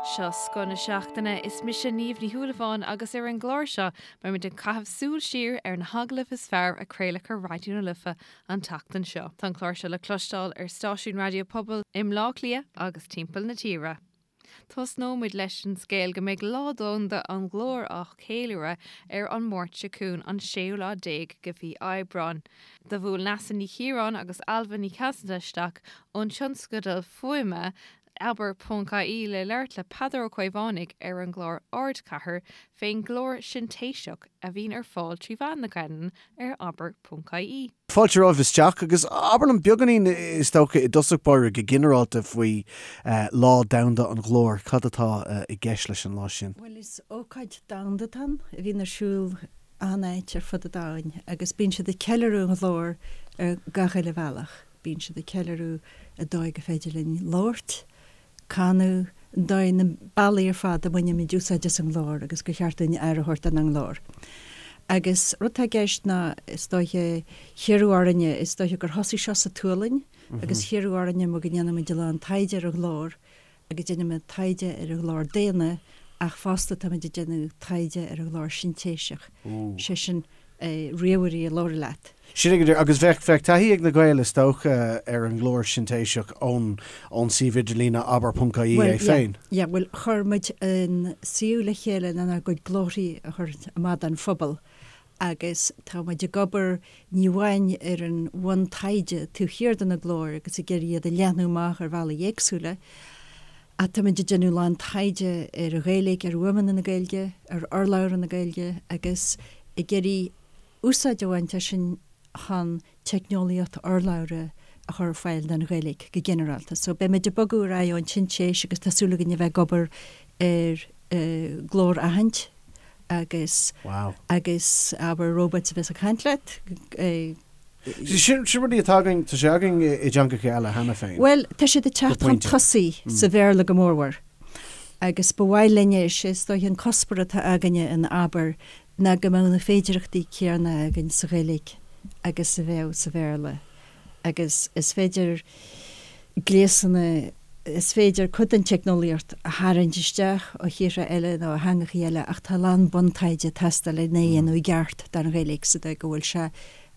Seo Scoth na Seachtaine, is mise Niamh Ní Shúilleabháin agus ar an gclár seo beimid ag caitheamh súil siar ar na hagallaimh is fearr a craoladh ar Raidió na Life an tseachtain seo. Tá an clár seo le cloisteáil ar stáisiúin raidió pobail i mBleá Cliath agus timpeall na tíre. Tosnóimid leis an scéal go mbeidh Lá Domhanda an Ghlóir á cheiliúradh ar an Máirt seo chugainn, an séú lá déag de mhí Aibreáin. Do bhuail Neasa Ní Chiaráin agus Ailbhe Ní Chasaide isteach ón tionscadal fuaime Abair ponc ie le labhairt le Peadar Ó Caomhánaigh ar an gclár Ardchathair fén nglór sintéiseach a bhíonn ar fáil 3 mheán na Gaelainne ar abair ponc ie. Fáilte romhaibh isteach agus abair liom beagáinín is dócha i dtosach báire go ginearálta faoi Lá Domhanda an Ghlóir. Cad atá i gceist leis an lá sin? Bhuel is ócáid domhanda atá ann a bhíonn ar siúl achan áit ar fud an domhain agus bíonn siad ag ceiliúradh an ghlóir ar gach uile bhealach. Bíonn siad ag ceiliúradh an dóigh gur féidir linn labhairt, canadh, an dóigh, na bealaí ar fad a mbainimid úsáid as an nglór agus gur cheart dúinn aire a thabhairt don nglór. Agus rud atá i gceist ná, is dóiche, hiarradh orainne, is dóiche gur thosaigh seo sa tSualainn agus hiarradh orainne mar go ndéanaimid a lán taighde ar an ghlór agus déanaimid taighde ar an ghlór daonna ach fosta táimid ag déanamh taighde ar an ghlór sintéiseach, sé sin ríomhairí a labhraíonn leat. Sin é go díreach. Agus bheadh, bheadh taithí ag na Gaeil is dócha ar an nglór sintéiseach ón, ón suíomh idirlíne abair ponc ie é féin. Yeah, bhuel chuir muid an suíomh le chéile lenár gcuid glórthaí a chur amach don phobal agus tá muid ag obair ní amháin ar an bhuntaighde taobh thiar de na glóir agus ag iarraidh iad a leathnú amach ar bhealaí éagsúla ach tá muid ag déanamh a lán taighde ar an Ghaeilge, ar fhuaimeanna na Gaeilge, ar urlabhra na Gaeilge agus ag iarraidh úsáid a bhaint as sin chun teicneolaíocht urlabhra a chur ar fáil don Ghaeilge go ginearálta. So beimid ag bogadh ar aghaidh ón tsintéis agus tá súil againn a bheith ag obair ar glór-aithint agus Wow. agus abair robots a bheas ag caint leat. Sin sin rudaí atá againn, tá sé againn i dteangacha eile cheana féin. Bhuel, tá siad ag teacht chun tosaigh sa Bhéarla go mórmhór agus ba mhaith linne, is é is dóiche an cuspóir atá againne in Abair ná go mbeadh na féidearthachtaí céanna againn sa Ghaeilge agus a bheadh sa Bhéarla agus is féidir gléasanna, is féidir cuid den teicneolaíocht a tharraingt isteach ó thíortha eile nó ó theangachaí eile ach tá a lán buntaighde ag teastáil lena dhéanamh i gceart don Ghaeilge sa dóigh go bhfuil sé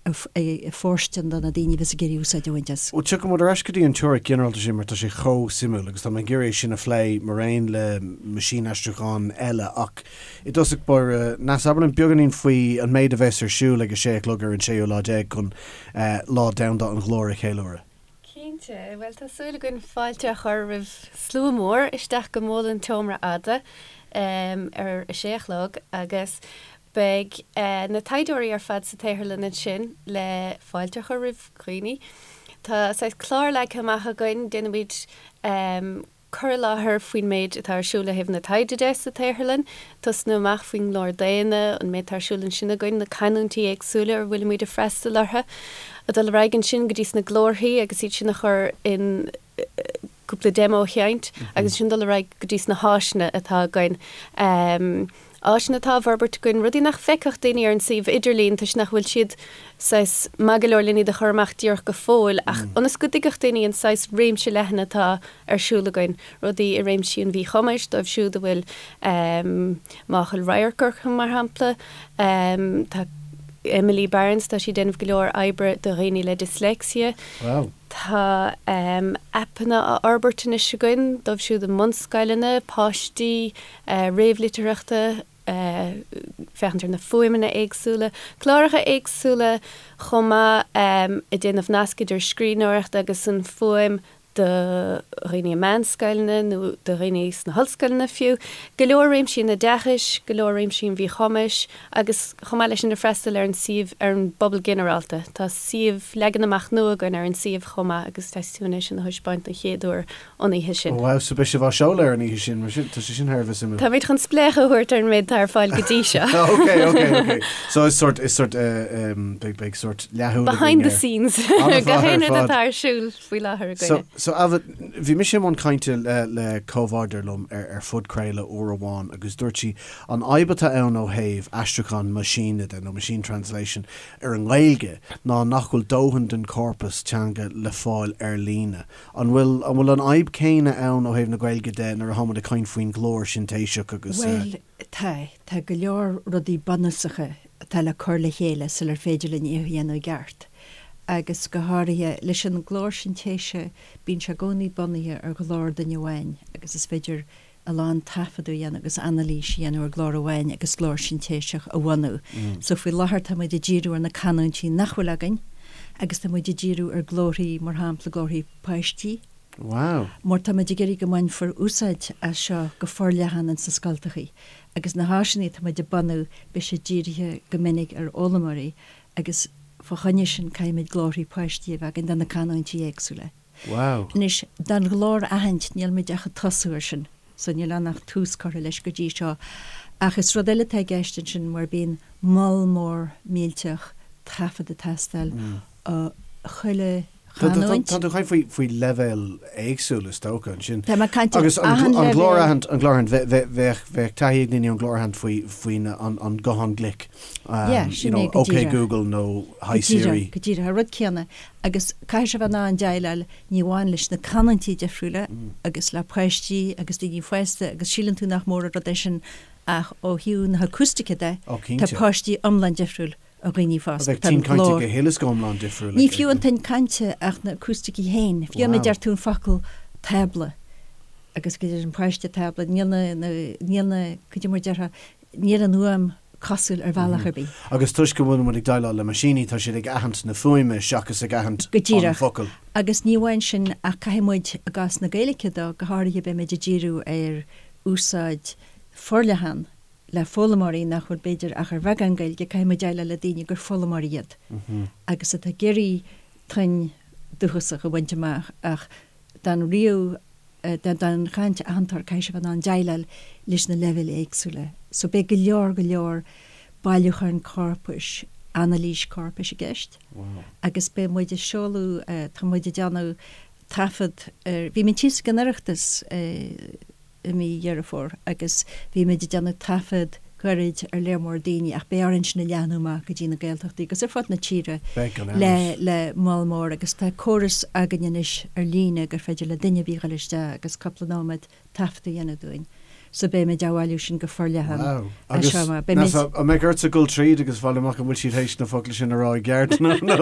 fóirstean do na daoine a bheas ag iarraidh úsáid a bhaint as. Bhuel, tiocfaidh muid ar ais go dtí an teoiric ghinearálta sin mar tá sé chomh suimiúil agus tá mé ag iarraidh é sin a phlé maraon le meaisínaistriúchán eile ach i dtosach báire, Neasa, abair linn beagáinín faoi an méid a bheas ar siúl ag a sé a chlog ar an séú lá déag chun Lá Domhanda an Ghlóir a cheiliúradh. Cinnte. Bhuel, tá súil againn fáilte a chur roimh slua mór isteach go Mol an tSeomra Fhada ar a sé a chlog agus Beidh na taighdeoirí ar fad sa tsaotharlann ansin le fáilte a chur roimh dhaoine. Tá saghas clár leagtha amach againn, déanfaimid cur i láthair faoin méid atá ar siúl ó thaobh na taighde de sa tsaotharlann, tosnú amach faoin nglór daonna, an méid atá ar siúl ansin againn, na canúintí éagsúla ar bhfuilimid ag freastal orthu, ag dul ar aghaidh ansin go dtí sna glórthaí agus iad sin a chur in cúpla demo a sheinnt agus ansin dul ar aghaidh go dtí sna háiseanna atá againn. Áiseanna atá á bhforbairt againn, rudaí nach bhfeicfeadh daoine ar an suíomh idirlín toisc nach bhfuil siad saghas maith go leor len iad a chur amach díreach go fóill ach ionas go dtuigfeadh daoine an saghas réimse leathan atá ar siúl againn, rudaí i réimsí an mhíchumais dóibh siúd a bhfuil máchail radhairc orthu mar shampla. Tá Emily Barnes, tá sí ag déanamh go leor oibre do dhaoine le dyslexia. Wow. Tá aipeanna á fhorbairt anois againn dóibh siúd i mbunscoileanna, páistí réamhlitearthachta, féachaint ar na fuaimeanna éagsúla, cláracha éagsúla chomh maith ag déanamh nasc idir scríbhneoireacht agus an fuaim do dhaoine i meánscoileanna nó do dhaoine sna hollscoileanna fiú. Go leor réimsí an oideachais, go leor réimsí an mhíchumais agus chomh maith leis sin ag freastal ar an suíomh, ar an bpobal ginearálta. Tá suíomh, leagan amach nua againn ar an suíomh chomh maith agus tá súil againn é sin a thaispeáint don chéad uair an oíche sin. Ó wow, so beidh sibh á seoladh ar an oíche sin, mar sin, tá sé sin thar a bheith suimiúil. Táimid chun spléachadh a thabhairt ar an méid atá ar fáil go dtí seo. Ok, ok, ok. So is sort, is sort, eh, em, beidh, beidh sort leathshúil againn Behind the scenes. Gach aon rud atá ar siúl faoi láthair againne. So Ailbhe, bhí mise i mbun cainte le le comhbhádóir liom ar ar phodchraoladh uair amháin agus dúirt sí an fhadhb atá ann ó thaobh aistriúchán meaisíne de nó machine translation ar an nGaeilge ná nach bhfuil dóthain den chorpas teanga le fáil ar líne. An bhfuil an bhfuil an fhadhb céanna ann ó thaobh na Gaeilge de nuair atá muid ag caint faoin ghlór sintéiseach agus. Bhuel, tá. Tá go leor rudaí bunúsacha atá le cur le chéile sular féidir linn é a dhéanamh i gceart. Agus go háirithe, leis an nglór sintéise, bíonn sé i gcónaí bunaithe ar ghlór duine amháin agus is féidir a lán taifeadadh a dhéanamh agus anailís a dhéanamh ar ghlór amháin agus glór sintéiseach a bhunú. So faoi láthair tá muid ag díriú ar na canúintí nach bhfuil againn agus tá muid ag díriú ar glórthaí, mar shampla glórthaí páistí. Wow. Mar tá muid ag iarraidh go mbainfear úsáid as seo go forleathan ins na scoltachaí. Agus na háiseanna atá muid ag bunú, beidh siad dírithe go minic ar fhoghlaimeoirí agus fá choinne sin caithfimid glórthaí páistí a bheith againn do na canúintí éagsúla. Wow. Anois, don ghlór aithint, níl muid ach ag tosú air sin, so níl ann ach tús curtha leis go dtí seo. Ach is rud eile atá i gceist ansin mar bíonn moll mór millteach taifead ag teastáil ó chuile chanúint. Tá tú ag caint faoi leibhéil éagsúla is dócha ansin. Tá mé ag caint ar Agus an achan leibhéal. glór-aithint, an glór-aithint, bheadh bheadh taithí ag daoine ar an glór-aithint faoi faoin an guthán glic. Yeah, sin é go díreach. OK Google nó Hi Siri. Go díreach, go díreach, an rud céanna. Agus caithfidh sé bheith in ann déileáil ní amháin leis na canúintí difriúla agus le páistí agus daoine fásta agus síleann tú nach mór an rud é sin ach ó thaobh na hacústaice de, tá páistí iomlán difriúil ó dhaoine fásta. Bheadh tuin cainte go huile is go hiomlán difriúil. Ní fiú an tuin cainte ach na acústaicí féin. Fiú má deir tú an focal tábla agus go deir an páiste tábla, níl na, níl na, cad é mar déarfá, níl an fhuaim cosúil ar bhealach ar bith. Agus toisc go bhfuil muid ag déileáil le meaisíní, tá siad ag aithint na fuaime seachas ag aithint an focal. Go díreach. Agus ní amháin sin ach caithfidh muid, i gcás na Gaeilge de, go háirithe beimid ag díriú ar úsáid forleathan le foghlaimeoirí nach bhfuil b'fhéidir ach ar bheagán Gaeilge, caithfidh muid déileáil le daoine gur foghlaimeoirí iad agus atá ag iarraidh tuin dúchasach a bhaint amach ach don ríomh, don chaint aitheantóir, caithfidh sé bheith in ann déileáil leis na leibhéil éagsúla. So beidh go leor, go leor bailiúcháin corpais, anailís corpais i gceist agus beidh muid ag seoladh, tá muid ag déanamh taifead ar, bhí muid thíos ag an Oireachtas, i mí Dheireadh Fómhair agus bhí muid ag déanamh taifead gairid ar léar mór daoine ach beidh orainn sin a leathnú amach go dtí na Gaeltachtaí agus ar fud na tíre le le moll mór agus tá córas againn anois ar líne gur féidir le duine ar bith dhul isteach agus cúpla nóiméad taifead a dhéanamh dúinn. So beidh muid á bhailiú sin go forleathan Wow. Agus seo amach. Beidh muid. An mbeidh ortsa dul tríd agus fáil amach an bhfuil siad théis na focla sin a rá i gceart nó nó.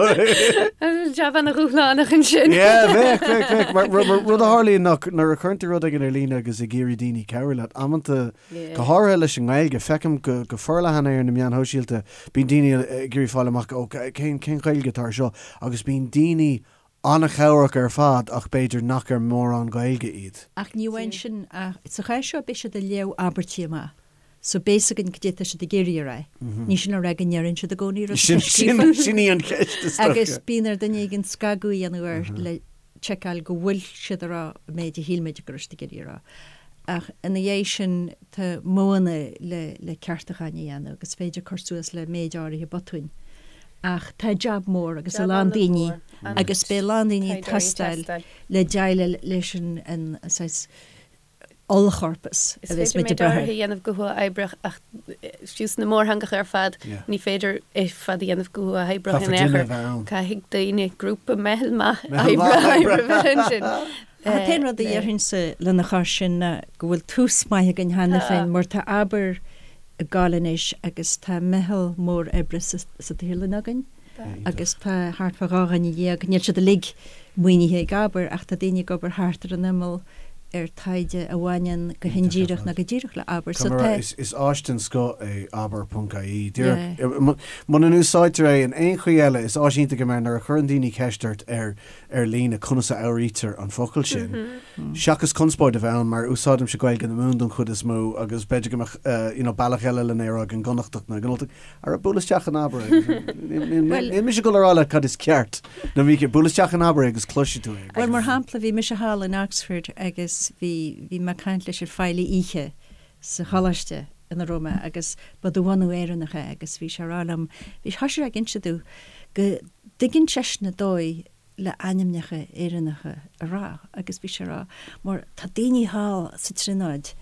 Jab ana-dhúshlánach ansin. Yeah, bheadh, bheadh, bheadh. Mar mar rud a tharlaíonn ná nuair a chuireann tú rud éigin ar líne agus ag iarraidh daoine cabhrú leat, amanta, go háirithe leis an nGaeilge, feicim go go forleathan é ar na meáin shóisialta, bíonn daoine ag iarraidh fáil amach, ó, cén cén Ghaeilge atá ar seo? Agus bíonn daoine an-chabhrach ar fad ach b'fhéidir nach ar mórán Gaeilge iad. Ach ní amháin sin, ach sa chás seo beidh siad ag léamh abairtí amach so beidh fhios againn cad é atá siad ag iarraidh a rá. Ní sin le rá go ndeireann siad i gcónaí rud atá scríofa. Sin í an cheist is dócha. Agus bíonn ar duine éigin scagadh a dhéanamh air le tseiceáil go bhfuil siad ag rá an méid a shíl muid go raibh siad ag iarraidh a rá. Ach ina dhiaidh sin tá modhanna le le ceartúcháin a dhéanamh agus is féidir cur suas le méid áirithe botúin. Ach tá jab mór agus a lán daoine agus beidh a lán daoine ag teastáil le déileáil leis an saghas ollchorpas a bheas muid ag brath air. Is féidir méid áirithe a dhéanamh go huathoibríoch ach fiú sna mórtheangacha ar fad ní féidir é ar fad a dhéanamh go huathoibríoch in aon chor. Caithfidh daoine, grúpa, meitheal maith oibre a bheith ansin. An t-aon rud a déarfainnse lena chois sin ná go bhfuil tús maith againn cheana féin mar tá Abair ag gabháil anois agus tá meitheal mór oibre sa tsaotharlann againn agus tá thart fá 12 dhuine, níl siad uilig maoinithe ag Abair ach tá daoine ag obair thart ar an imeall ar taighde a bhaineann go hindíreach nó go díreach le Abair. So tá. Is áis den scoth é abair ponc ie. Díreach, muna n-úsáidtear é in aon chaoi eile, is áis iontach é mar nuair a chuireann daoine ceist ort ar ar líne conas a fhuaimnítear an focal sin, seachas conspóid a bheith ann, mar úsáidimse Gaeilge na Mumhan don chuid is mó agus b'fhéidir go mbeadh you know bealach eile lena rá ag an gConnachtach nó ag an Ultach, ara buail isteach in Abair é. Níl mise ag dul a rá leat cad is ceart nó mícheart, buail isteach in Abair é agus cloisfidh tú é. Bhuel, mar shampla, bhí mise thall in Oxford agus bhí, bhí mé ag caint leis an feighlí oíche sa choláiste ina raibh mé agus ba de bhunadh Éireannach é agus bhí sé ag rá liom, bhí, thosaigh sé ag inse domh go dtuigeann seisean an dóigh. le ainmneacha Éireannacha a rá agus bhí sé ag rá mar tá daoine thall sa Tríonóid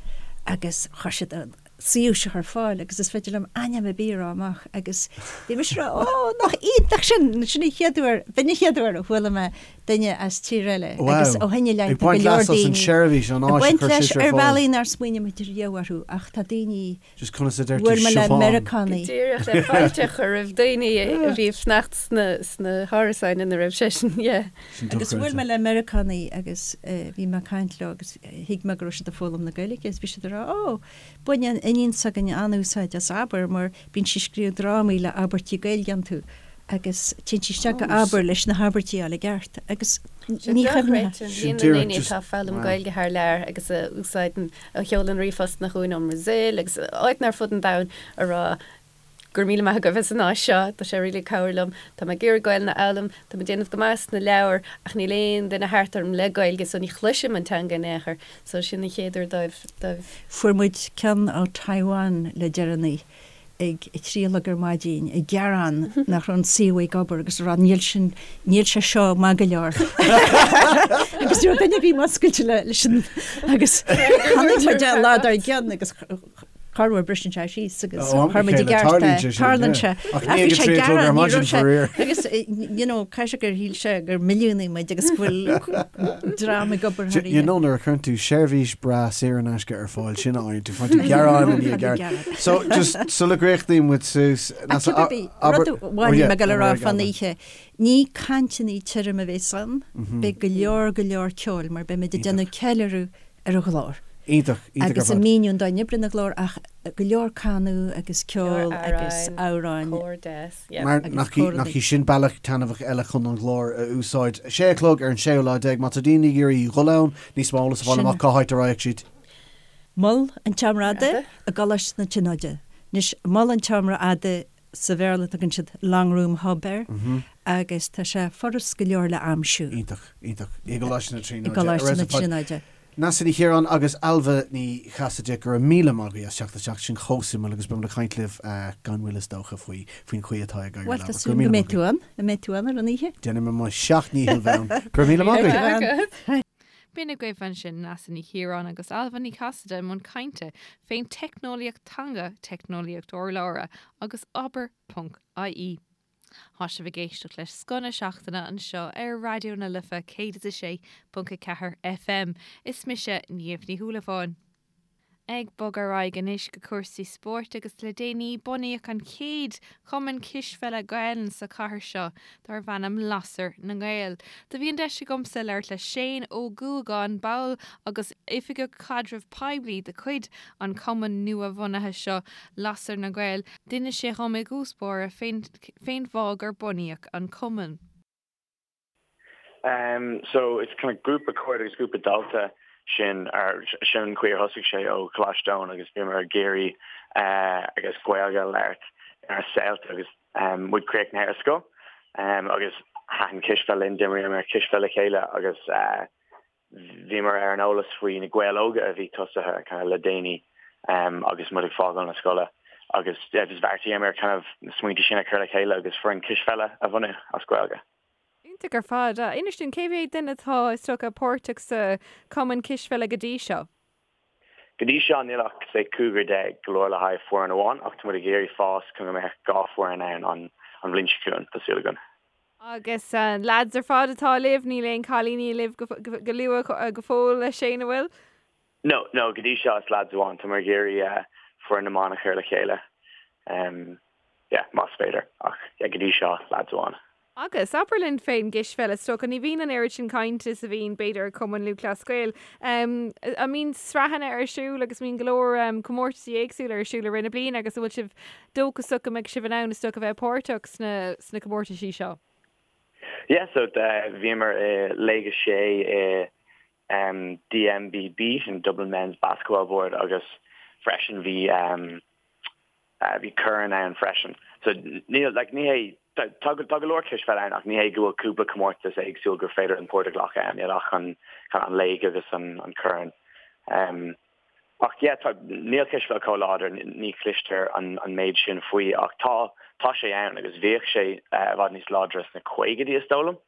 agus chuir siad an suíomh seo ar fáil agus is féidir liom ainm ar bith a rá amach agus bhí mise ag rá ó nach iontach sin, sin an chéad uair, b'in an chéad uair a chuala mé duine as tír eile agus ó shin i leith tá go leor daoine ag baint leis ar bhealaí nár smaoinigh muid riamh orthu ach tá daoine Just conas a deir tú Bhuail mé le Siobhán? Meiriceánaigh. Go díreach le fáilte a chur roimh daoine a bhí ag fanacht sna hárasáin ina raibh seisean, yeah. Sin Agus bhuail dochreidte. mé le Meiriceánaigh agus bhí mé ag caint leo agus thuig mé go raibh siad ag foghlaim na Gaeilge agus bhí siad ag rá 'Ó, baineann iníon s'againne an-úsáid as Abair mar bíonn sí ag scríobh drámaí le abairtí Gaeilge iontu agus téann sí isteach go Abair leis na habairtí a fháil i gceart agus Sin ní chuimhneofá. dochreidte, líon na ndaoine atá ag foghlaim Gaeilge thar lear agus a úsáideann a sheolann ríomhphostanna chugainn ón mBrasaíl agus áiteanna ar fud an domhain a rá Go raibh míle maith agaibh as an áis seo, tá sé really ag cabhrú liom, tá mé ag iarraidh Gaelainn a fhoghlaim, tá mé ag déanamh go maith sna leabhair ach níl aon duine thart orm le Gaeilge so ní chloisim an teanga in aon chor. So sin an chéad uair dóibh, dóibh. Fuair muid ceann ó Taiwan le deireanaí ag a 3 a chlog ar maidin ag gearán nach raibh an suíomh ag obair agus ag rá níl sin, níl sé seo maith go leor. Agus ní raibh duine ar bith múscailte leis an agus chonaic muid é an lá dár gcionn agus corruair briseann sé síos agus Ó, am chuir muid i chéile, gceart é. tarlaíonn sé sin, Tarlaíonn yeah. sé. Ach Ach ní bhí ag a sé 3 a chlog ar gearán, ní maidin raibh sé faraor. agus you know caithfidh sé gur shíl sé gur milliúnaigh muid agus go bhfuil dream ag obair thar You oíche. know nuair a chuireann tú seirbhís breá saor in aisce ar fáil sin a fhaigheann tú faigheann tú gearán i ndiaidh gearán. So just sula gcríochnaíonn muid suas Ach cibé ar bith, rud amháin a bhí mé ag dul a rá fán oíche, ní cainteanna tirim a bheas ann, beidh go leor go leor ceoil mar beidh muid ag déanamh ceiliúradh ar an ghlór. Iontach, iontach ar Agus ag fad. míniú an dóigh a n-oibríonn an glór ach go leor canadh agus ceol agus amhráin. Cór deas, yeah. Mar Agus nach í, cór nach í sin bealach taitneamhach eile chun an ghlór a úsáid. Sé a chlog ar an séú lá déag, má tá daoine ag iarraidh dhul ann, níos mó eolas a fáil Sin. amach cá háit a raghadh siad. Mol an tSeomra Fhada i gColáiste na Tríonóide. Anois, Mol an tSeomra Fhada sa Bhéarla tugann siad Long Room Hub air agus tá sé furast go leor le aimsiú. Iontach, iontach. I gColáiste na I Tríonóide. gColáiste na Tríonóide. Neasa Ní Chiaráin agus Ailbhe Ní Chasaide, go raibh míle maith agaibh as teacht isteach, sin chomh suimiúil agus beidh muid ag caint libh gan mhoill is dócha faoi faoin chaoi atá ag éirí Bhuel, le tá Go raibh súil míle go maith mbeidh tú agaibh. ann, an mbeidh tú ann ar an oíche? Déanfaidh mé mo sheacht ndícheall bheith ann. Go raibh míle maith agaibh. B'in agaibh ansin Neasa Ní Chiaráin agus Ailbhe Ní Chasaide i mbun cainte fén teicneolaíocht teanga, teicneolaíocht urlabhra agus abair ponc ie. Tá sibh ag éisteacht le Scoth na Seachtaine anseo ar Raidió na Life 106.4 FM. Is mise Niamh Ní Shúilleabháin. Ag bogadh ar aghaidh anois go cúrsaí spóirt agus le déanaí bunaíodh an chéad chumann cispheile Gaelainne sa chathair seo darb ainm Lasair na nGael. Do bhí an deis agamsa labhairt le Shane Ó Guagáin, ball agus oifigeach caidreamh poiblí de chuid an chumainn nua-bhunaithe seo Lasair na nGael. D'inis sé dhom i dtús báire fén fén bhfáth gur bunaíodh an cumann. Um so it's kind of grúpa cairde agus grúpa dalta sin ar sin an chaoi ar thosaigh sé ó Choláiste Eoin agus bhíomar ag iarraidh eh agus Gaeilge a labhairt ar saolta agus um muid críochnaithe ar scoil um agus thaitin cispheil linn d'imríomar cispheil le chéile agus eh bhíomar ar an eolas faoi na Gaeil Óga a bhí tosaithe kind of le déanaí um agus muid ag fágáil na scoile agus yeah just bheartaíomar kind of na smaointe sin a chur le chéile agus foireann cispheile a bhunú as Gaeilge. Iontach ar fad. Inis dúinn, cé mhéad duine atá is dócha páirteach sa chumann cispheile go dtí seo? Go dtí seo níl ach say cúigear déag go leor le haghaidh foireann amháin ach tá muid ag iarraidh fás chun go mbeadh dhá foireann ann an an bhliain seo chugainn, tá súil againn. Agus lads ar fad atá libh, níl aon cailíní libh go luath go fóill a Shane, an bhfuil? No, no, go dtí seo is lads amháin, tá muid ag iarraidh foireann na mban a chur le chéile, yeah, más féidir, ach yeah, go dtí seo lads amháin. Agus, abair linn fén gcispheil, is dócha, ní bhíonn an oiread sin cainte is a bhíonn, b'fhéidir, ar Chumann Lúthchleas Gael. An mbíonn sraitheanna ar siúl agus mbíonn go leor comórtaisí éagsúla ar siúl i rith na bliana agus an bhfuil sibh dóchasach go mbeidh sibh in ann, is dócha, a bheith páirteach sna, sna comórtaisí seo? Yeah, so bhíomar i Léig 6 i DMBB, sin Dublin Men's Basketball Board, agus freisin bhí bhí corn ann freisin. So níl, like, ní hé, tá tá go leor cispheil ann ach ní hé go bhfuil cúpla comórtas éagsúil gur féidir an páirt a ghlacadh ann, níl ach an kind of an léig agus an an corn. Um, ach yeah, tá, níl cispheil chomh láidir, ní chloistear an an méid sin faoi ach tá tá sé ann agus bhíodh sé uh, i bhfad níos láidre sna caogaidí is dóigh liom.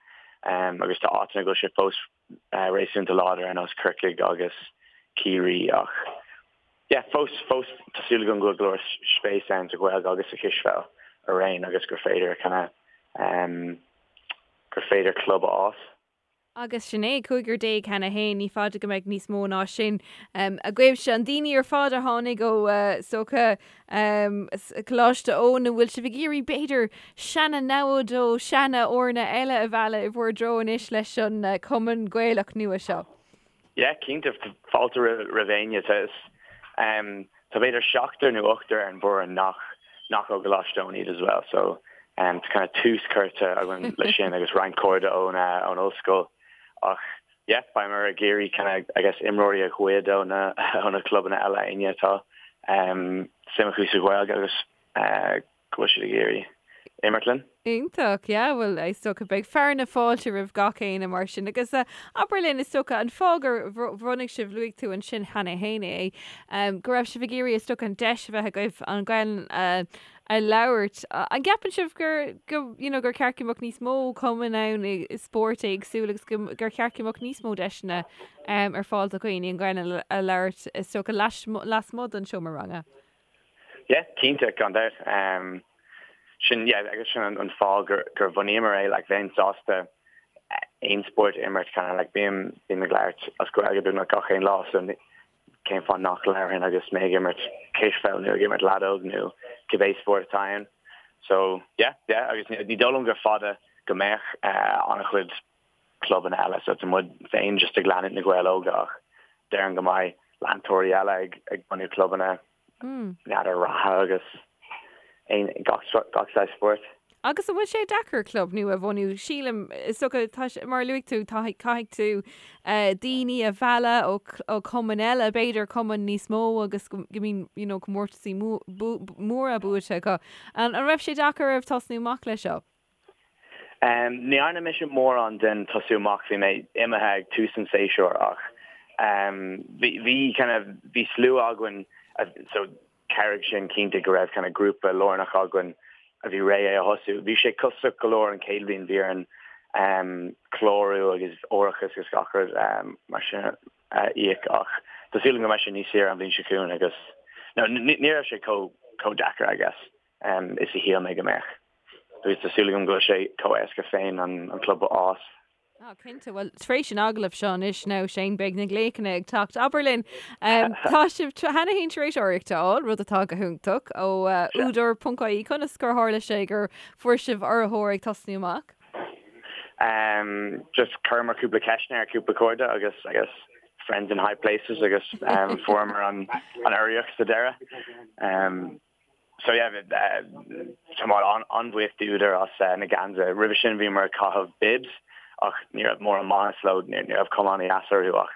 Agus tá áiteanna go bhfuil sé fós réasúnta láidir ar nós Corcaigh agus Ciarraí ach yeah fós fós tá súil agam go bhfuil go leor spéis ann sa Ghaeilge agus sa chispheil araon agus gur féidir kind of gur féidir club a fhás. Agus sin é, cúigear déag cheana fhéin, ní fada go mbeidh níos mó ná sin agaibhse. An daoine ar fad a tháinig ó, is dócha, Coláiste Eoin, an bhfuil sibh ag iarraidh, b'fhéidir, seana-namhaid ó seana-fhoirne eile a mhealladh i bhur dtreo anois leis an Cumann Gaelach nua seo? Yeah, cinnte, fáilte roimh éinne. Tá tá b'fhéidir seachtar nó ochtar ar an bhfoireann nach nach ó Choláiste Eoin iad as well, so tá kind of tús curtha againn leis sin agus roinnt cairde ón ón ollscoil. Ach yeah, beimid ag iarraidh kind of I guess imreoirí a ghoid ó na ó na clubanna eile éinne atá suim acu sa Ghaeilge agus go bhfuil siad ag iarraidh imirt linn. Iontach, yeah, bhuel is dócha beidh fearadh na fáilte roimh gach éinne mar sin agus abair linn is dócha an fáth gur bhunaigh sibh, luaigh tú ansin cheana fhéin é, go raibh sibh ag iarraidh is dócha an deis a bheith agaibh an Ghaelainn a labhairt. An gceapann sibh gur, go, you know, gur ceart go mbeadh níos mó cumainn ann i spóirt éagsúil agus go, gur cheart go mbeadh níos mó deiseanna ar fáil do dhaoine an Ghaelainn a labhairt is dócha lasmuigh den seomra ranga? Yeah, cinnte, gan dabht. Sin, yeah, agus sin an fáth gur, gur bhunaíomar é, like, bheinn sásta aon spórt a imirt, kind of, like, bím, bím ag labhairt as Gaeilge beagnach gach aon lá, so cén fáth nach labharfainn agus mé ag imirt cispheil nó ag imirt leadóg nó cibé spórt atá ann. So, yeah, yeah, agus ní dóigh liom gur fada go mbeadh an-chuid clubanna eile so tá muid féin just ag leanúint na Gaeil Óga ach déarfainn go mbeidh leantóirí eile ag ag bunú clubanna n'fheadar reatha agus aon gach gach saghas spóirt. Agus an bhfuil sé deacair club nua a bhunú? Sílim, is dócha, tá sé, mar a luaigh tú, tá, caithfidh tú daoine a mhealladh ó ó chumainn eile, b'fhéidir cumainn níos mó agus go go mbíonn you know comórtasaí móra buaite acu. An an raibh sé deacair oraibh tosnú amach leis seo? Ní dhearna mise mórán den tosú amach, bhí mé imithe ag tús an tséasúir ach bhí bhí kind of bhí slua againn so chabhraigh sin cinnte go raibh kind of grúpa lárnach againn a bhí réidh é a thosú. Bhí sé costasach go leor an chéad bhliain, bhí orainn clárú agus árachas agus gach rud mar sin a íoc ach tá súil agam go mbeidh sé níos saoire an bhliain seo chugainn agus no ní raibh sé chomh chomh deacair I guess is a shíl mé go mbeadh. Agus tá súil agam go bhfuil sé chomh éasca féin an club a fhás. Ah, cinnte. Bhuel, tar éis an agallaimh seo anois now, Shane, beidh na glaochanna ag teacht. Abair linn, tá sibh cheana féin tar éis urraíocht a fháil, rud atá go hiontach, ó Údar ponc ie. Conas gur tharla sé gur fuair sibh urraitheoir ag tosnú amach? Just chuireamar cúpla ceisteanna ar cúpla cairde agus, I guess, friends in high places agus fuaireamar an urraíocht sa deireadh. So yeah, tá muid an-bhuíoch d'Údar as na geansaithe. Roimhe sin bhíomar ag caitheamh bibs ach ní raibh mórán maitheas leo, ní raibh cuma an-dheas orthu ach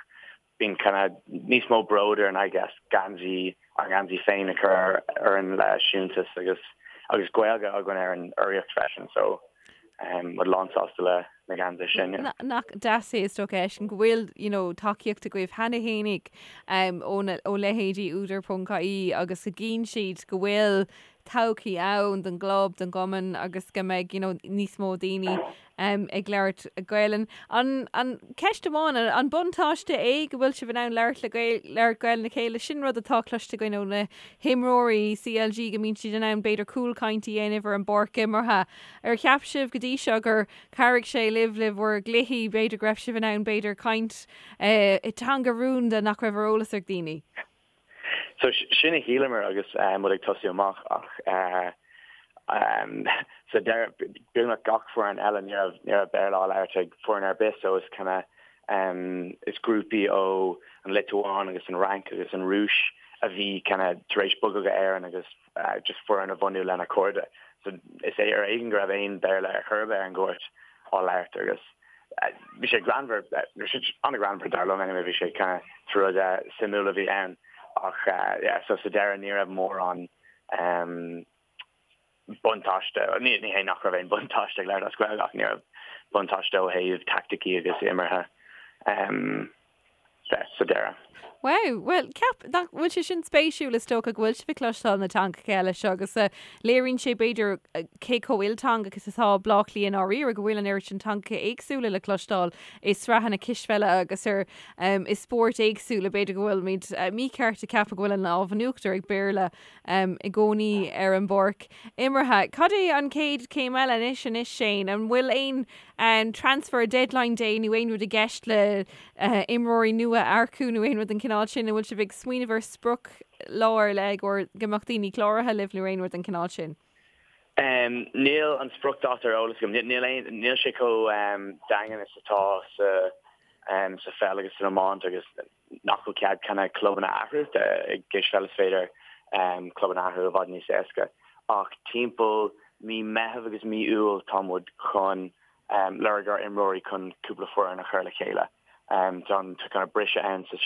bíonn kind of níos mó bród orainn I guess geansaí, ár ngeansaí féin a chur orainn le siúntas agus agus Gaeilge againn ar an urraíocht freisin so muid lánsásta le na geansaithe sin. Yeah. Nach deas é is dócha freisin go bhfuil you know tacaíocht agaibh cheana fhéinig ó na ó leithéidí Údar ponc ie agus go gcíonn siad go bhfuil todhchaí ann don gclub, don gcumann agus go mbeidh you know níos mó daoine ag labhairt Gaelainn. An an ceist amháin, an buntáiste é go bhfuil sibh in ann labhairt le Gael labhairt Gaelainn le chéile? Sin rud atá cloiste againn ó na himreoirí CLG go mbíonn siad in ann b'fhéidir cúlchaint a dhéanamh ar an bpáirc imeartha. Ar cheap sibh go dtí seo gur chabhraigh sé libh le bhur gcluichí, b'fhéidir go raibh sibh in ann b'fhéidir caint i dteanga rúnda nach raibh ar eolas ag daoine? So sin a shíleamar agus muid ag tosú amach ach sa deireadh beagnach gach foireann eile ní raibh ní raibh Béarla á labhairt ag foireann ar bith so is kind of is grúpaí ó an Liotuáin agus an Fhrainc agus an Rúis a bhí kind of tar éis bogadh go Éirinn agus just foireann a bhunú lena cairde. So is é ar éigean go raibh aon Béarla ar chor ar bith ar an gcúirt á labhairt agus bhí sé greannmhar, bhí sé an-ghreannmhar dar liom anyway, bhí sé kind of rud suimiúil a bhí ann ach yeah so sa deireadh ní raibh mórán buntáiste, ní ní hé nach raibh aon buntáiste ag labhairt as Gaeilge ach ní raibh buntáiste ó thaobh taicticí agus imeartha de sa deireadh. Wow, bhuel, ceap nach bhfuil sé sin spéisiúil is dócha go bhfuil sibh ag cloisteáil na teangacha eile seo agus léiríonn sé b'fhéidir cé chomh ilteangach is atá Baile Átha Cliath i ndáiríre go bhfuil an oiread sin teangacha éagsúla le cloisteáil i sraitheanna cispheile agus ar i spóirt éagsúla b'fhéidir go bhfuilimid mícheart ag ceapadh go bhfuil an lámh in uachtar ag Béarla i gcónaí ar an bpáirc imeartha. Cad é an chéad chéim eile anois anois Shane? An bhfuil aon An transfer deadline day nó aon rud i gceist le imreoirí nua a earcú nó aon rud den chineál sin? An bhfuil sibh ag smaoineamh ar sprioc lá ar leith i gcomhair go mbeadh daoine cláraithe libh nó aon rud den chineál sin? Níl an spriocdháta ar eolas agam. Níl aon, níl sé chomh daingean is atá sa sa pheil agus san iomáint agus nach bhfuil cead kind of clubanna a athrú. I gcispheil is féidir clubanna a athrú i bhfad níos éasca. Ach timpeall mí Meitheamh agus mí Iúil tá muid chun lorg ar imreoirí chun cúpla foireann a chur le chéile. Tá an kind of briseadh ann sa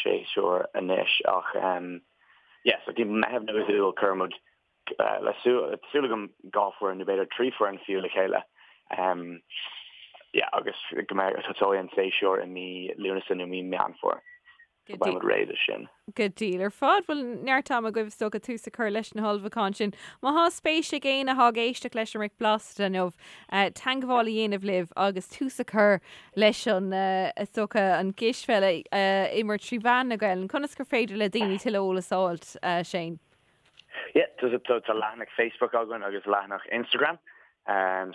séasúr anois ach yeah so timpeall Meitheamh nó Iúil cuireann muid le súil súil agam 2 foireann nó b'fhéidir 3 foireann fiú le chéile. Yeah agus go mbeidh tosóidh an séasúr i mí Lúnasa nó mí Meán Fómhair. So beidh muid réidh do sin. Go diail ar fad. Bhuel, neart ama agaibh is dócha tús a chur leis na hullmhúcháin sin. Má thá spéis ag éinne athá ag éisteacht leis an mBric Blasta inniu, teangmháil a dhéanamh libh agus tús a chur leis an, is dócha, an gcispheil a imirt trí mheán na Gaelainne, conas gur féidir le daoine tuilleadh eolas a fháilt, Shane? Yeah, tá leathanach Facebook againn agus leathanach Instagram,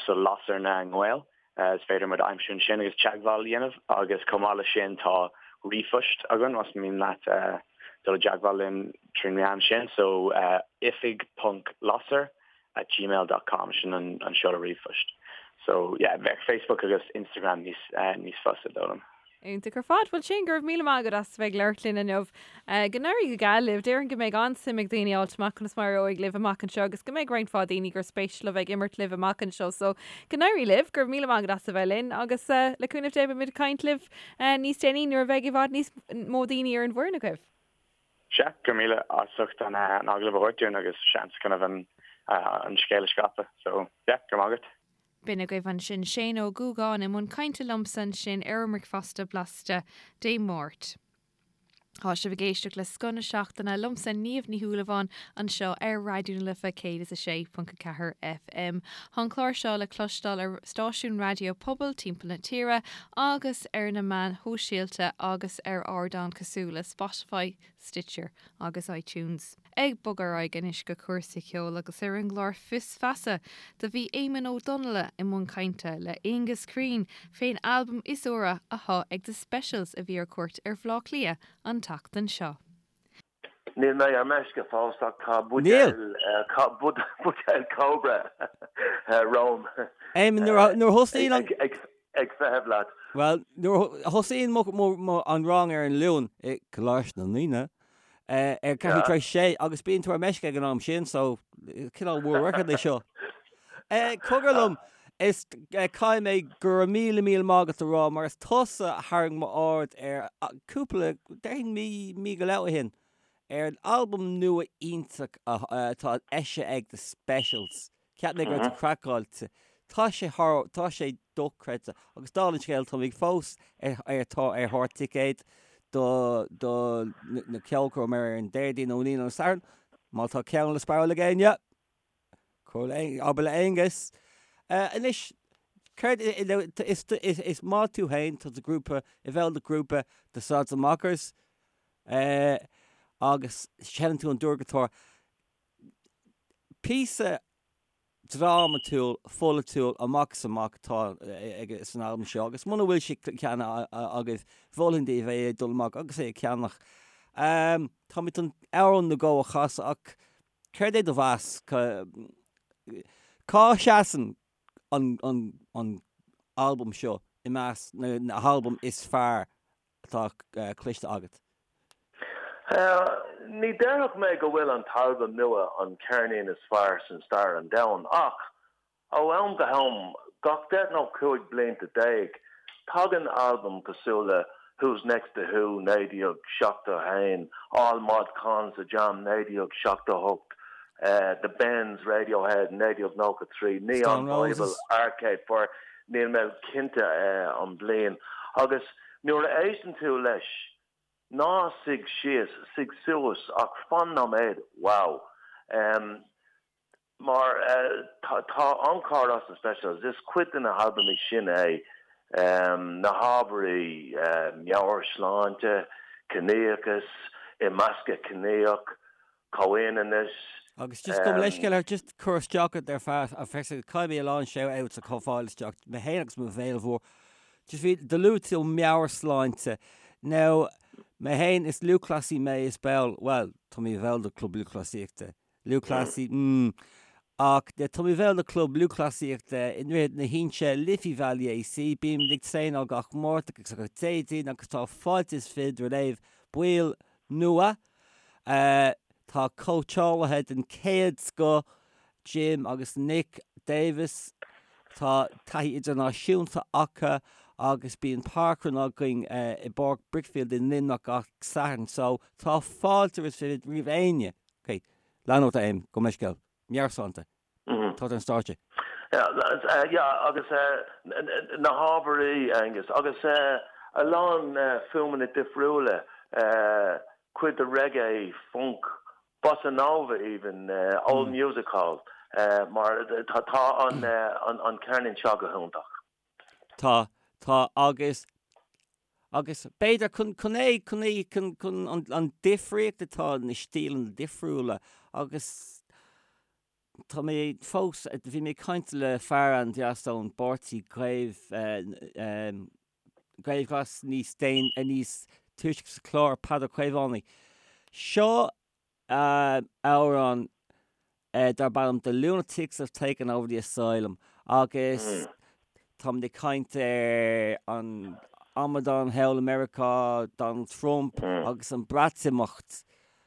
so Lasair na nGael. Is féidir muid a aimsiú ansin agus teagmháil a dhéanamh agus chomh maith leis sin tá ríomhphost againn más mian leat dul i dteagmháil linn trín meán sin so oifig ponc lasair at gmail dot com sin an seoladh ríomhphoist. So yeah bheadh Facebook agus Instagram níos níos fusa dóigh liom. Iontach ar fad. Bhuel Shane, go raibh míle maith agat as a bheith ag labhairt linn inniu. Go n-éirí go geal libh. Déarfainn go mbeidh an-suim ag daoine fháilt amach conas mar a éireoidh libh amach anseo agus go mbeidh roinnt mhaith daoine gur spéis leo bheith ag imirt libh amach anseo. So, go n-éirí libh. Go raibh míle maith agat as a bheith linn agus le cúnamh Dé beimid ag caint libh níos déanaí nuair a bheidh i bhfad níos mó daoine ar an bhfoireann agaibh. Sea, go raibh míle as ucht an agallamh a thabhairt dúinn agus seans kind of an scéal a scaipeadh. So, yeah, go raibh maith agat. B'in agaibh ansin Shane Ó Dúgáin i mbun cainte liomsa ansin ar an mBricfeasta Blasta Dé Máirt. Tá sibh ag éisteacht le Scoth na Seachtaine liomsa Niamh Ní Shúilleabháin anseo ar Raidió na Life 106.4 FM. Tá an clár seo le cloisteáil ar stáisiúin raidió pobail timpeall na tíre agus ar na meáin shóisialta agus ar ardáin cosúil le Spotify, Stitcher agus iTunes. Ag bogadh ar aghaidh anois go cúrsaí ceoil agus ar an gclár Fios Feasa do bhí Éamonn Ó Donnaile i mbun cainte le Aengus Crean fén albam is úire athá ag The Specials a bhí ar cuairt ar Bhleá Cliath an tseachtain seo. Níl mé ar meisce fós ach tá buidéal buidéal Cobra romham. Éamonn, nuair a thosaíonn an. Ag feitheamh leat. Bhuel, nuair a thosaíonn an rang ar an Luan i gColáiste na nDaoine, ar ceathrú tar éis a sé agus bíonn tú ar meisce ag an am sin so cineál world record é seo. Cogar liom, is caithfidh mé go raibh míle míle maith agat a rá mar is tusa a tharraing m'aird ar cúpla, déarfainn mí, mí go leith ó shin, ar an albam nua iontach atá eisithe ag The Specials. Cheap mé go raibh tú craiceáilte. Tá sé thar, tá sé dochreidte. Agus dála an scéil, táimid fós ar, ar, tá ar thóir ticéad do, do na ceolchoirm ar an Déardaoin nó an Aoine nó an Satharn. Má tá ceann le spáráil ag éinne, cuir le, abair le Aonghus. Anois, céard, is, is, is maith tú féin, tá do ghrúpa, i bhfeighil do ghrúpa The Sods and Mockers, agus seinneann tú an dordghiotár. Píosa drámatúil, pholaitiúil amach is amach atá san albam seo agus muna bhfuil sé ceannaithe agaibh, mholfainn daoibh é a dul amach agus é a cheannach. Táimid chun amhrán nó dhó a chasadh ach céard é do mheas? Cá seasann an albam seo i measc na halbaim is fearr atá cloiste agat? Ní déarfadh mé go bhfuil an t-albam nua an ceirnín is fearr san stair an domhain ach ó am go ham, gach 10 nó 15 blianta, tagann albam cosúil le Who's Next The Who 1971, All Mod Cons The Jam 1978, The Bends Radiohead 1993, Neon Stone Bible Roses. Arcade Fire, níl mé cinnte an bliain, agus nuair a éisteann tú leis. Ná suigh síos, suigh suas ach fan nóiméad, wow. Mar tá encore as na Specials, is cuid de na halbamaí sin é, na hábhairí, meabhairshláinte, ciníochas, imeascadh ciníoch, comhionannas. Agus just gabh mo leithscéal ar just cur isteach ort ar feadh a feicse caithfidh mé a lán shout outs a chur isteach mé féin agus mo bhéal mhór. Just bhí do luaigh tú meabhairshláinte. Now mé féin is lúthchleasaí mé is ball bhuel tá mé i bhall de club lúthchleasaíochta. Lúthchleasaí mm ach tá mé i bhall de club lúthchleasaíochta i nDroichead na hInse Liffey Valley AC bímid ag traenáil gach Máirt agus gach Déardaoin agus tá fáilte is fiche roimh baill nua. Tá cóitseálaithe den chéad scoth, Jim agus Nick Davis, tá taithí idirnáisiúnta acu agus bíonn parkrun againn i bPáirc Brickfield i Luimneach gach Satharn so tá fáilte is fiche roimh éinne. Ok, lean ort a Éamonn, gabh mo leithscéal. Meabhairshláinte. Tá tú ar an stáitse. Yeah, agus na hábhairí, Aengus, agus a lán fuaimeanna difriúla, cuid de reggae, funk, bossa nova even, old music hall, mar tá an ceirnín seo go hiontach. Tá, tá, agus, agus b'fhéidir chun, chun é, chun é, chun, chun an, an difríocht atá na stíleanna difriúla agus tá mé fós, bhí mé ag caint le fear an-deas ón bpáirtí Gaeilge, Gaelghlas níos déan, níos túisce sa chlár, Peadar Caomhánaigh. Seo amhrán darb ainm The Lunatics Have Taken Over the Asylum agus táimid ag caint ar an amadán thall i Meiriceá, Donald Trump agus an Breatimeacht.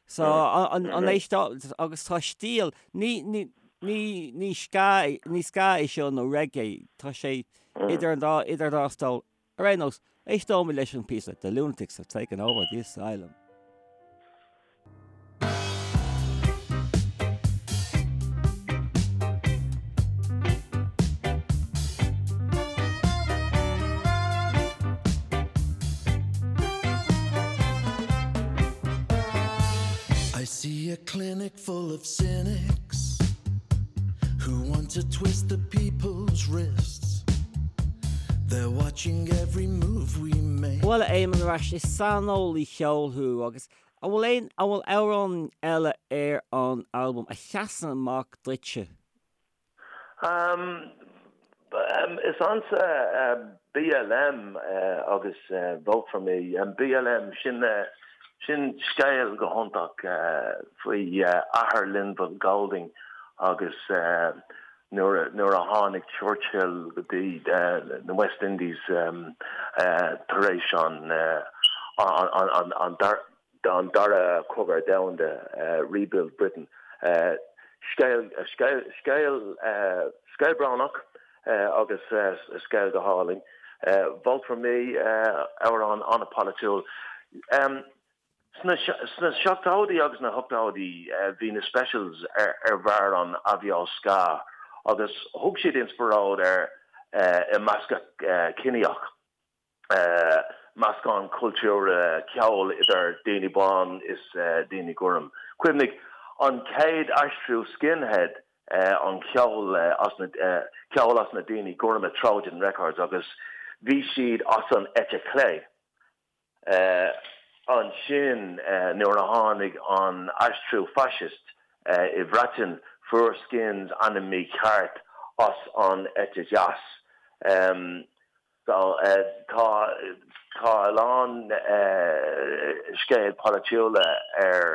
So an éisteáil agus tá stíl, ní ní ní ní ska ní ska é seo nó reggae, tá sé idir an dá idir an dá stól. Ar aon nós, éisteoimid leis an píosa The Lunatics Have Taken Over the Asylum. I see a clinic full of cynics who want to twist the people's wrists. They're watching every move we make. Bhuel, a Éamoinn, ar ais, is saineolaí ceoil thú agus an bhfuil aon, an bhfuil amhrán eile ar an albam a sheasann amach duitse? Um, is ansa BLM agus Vote For Me. BLM, sin, sin scéal go hiontach faoi athair Linval Golding agus nuair a tháinig Churchill go dtí na West Indies tar éis an Dara Cogadh Domhanda, Rebuild Britain. Scéal scéal brónach agus scéal go hálainn. Vote for Me, amhrán an-pholaitiúil. Sna seachtóidí agus na hochtóidí bhí na Specials ar bharr an aibhléis ska agus thug siad inspioráid ar imeascadh ciníoch, meascán cultúrtha ceoil idir daoine bán is daoine gorm. Cuimhnigh, an chéad aistriú skinhead an ceol as na ceol as na daoine gorma Trojan Records agus bhí siad as an eite chlé. Ansin nuair a tháinig an aistriú fascist i Bhreatain fuair Skins ainm mícheart as an eite dheas. So tá tá a lán scéal polaitiúla ar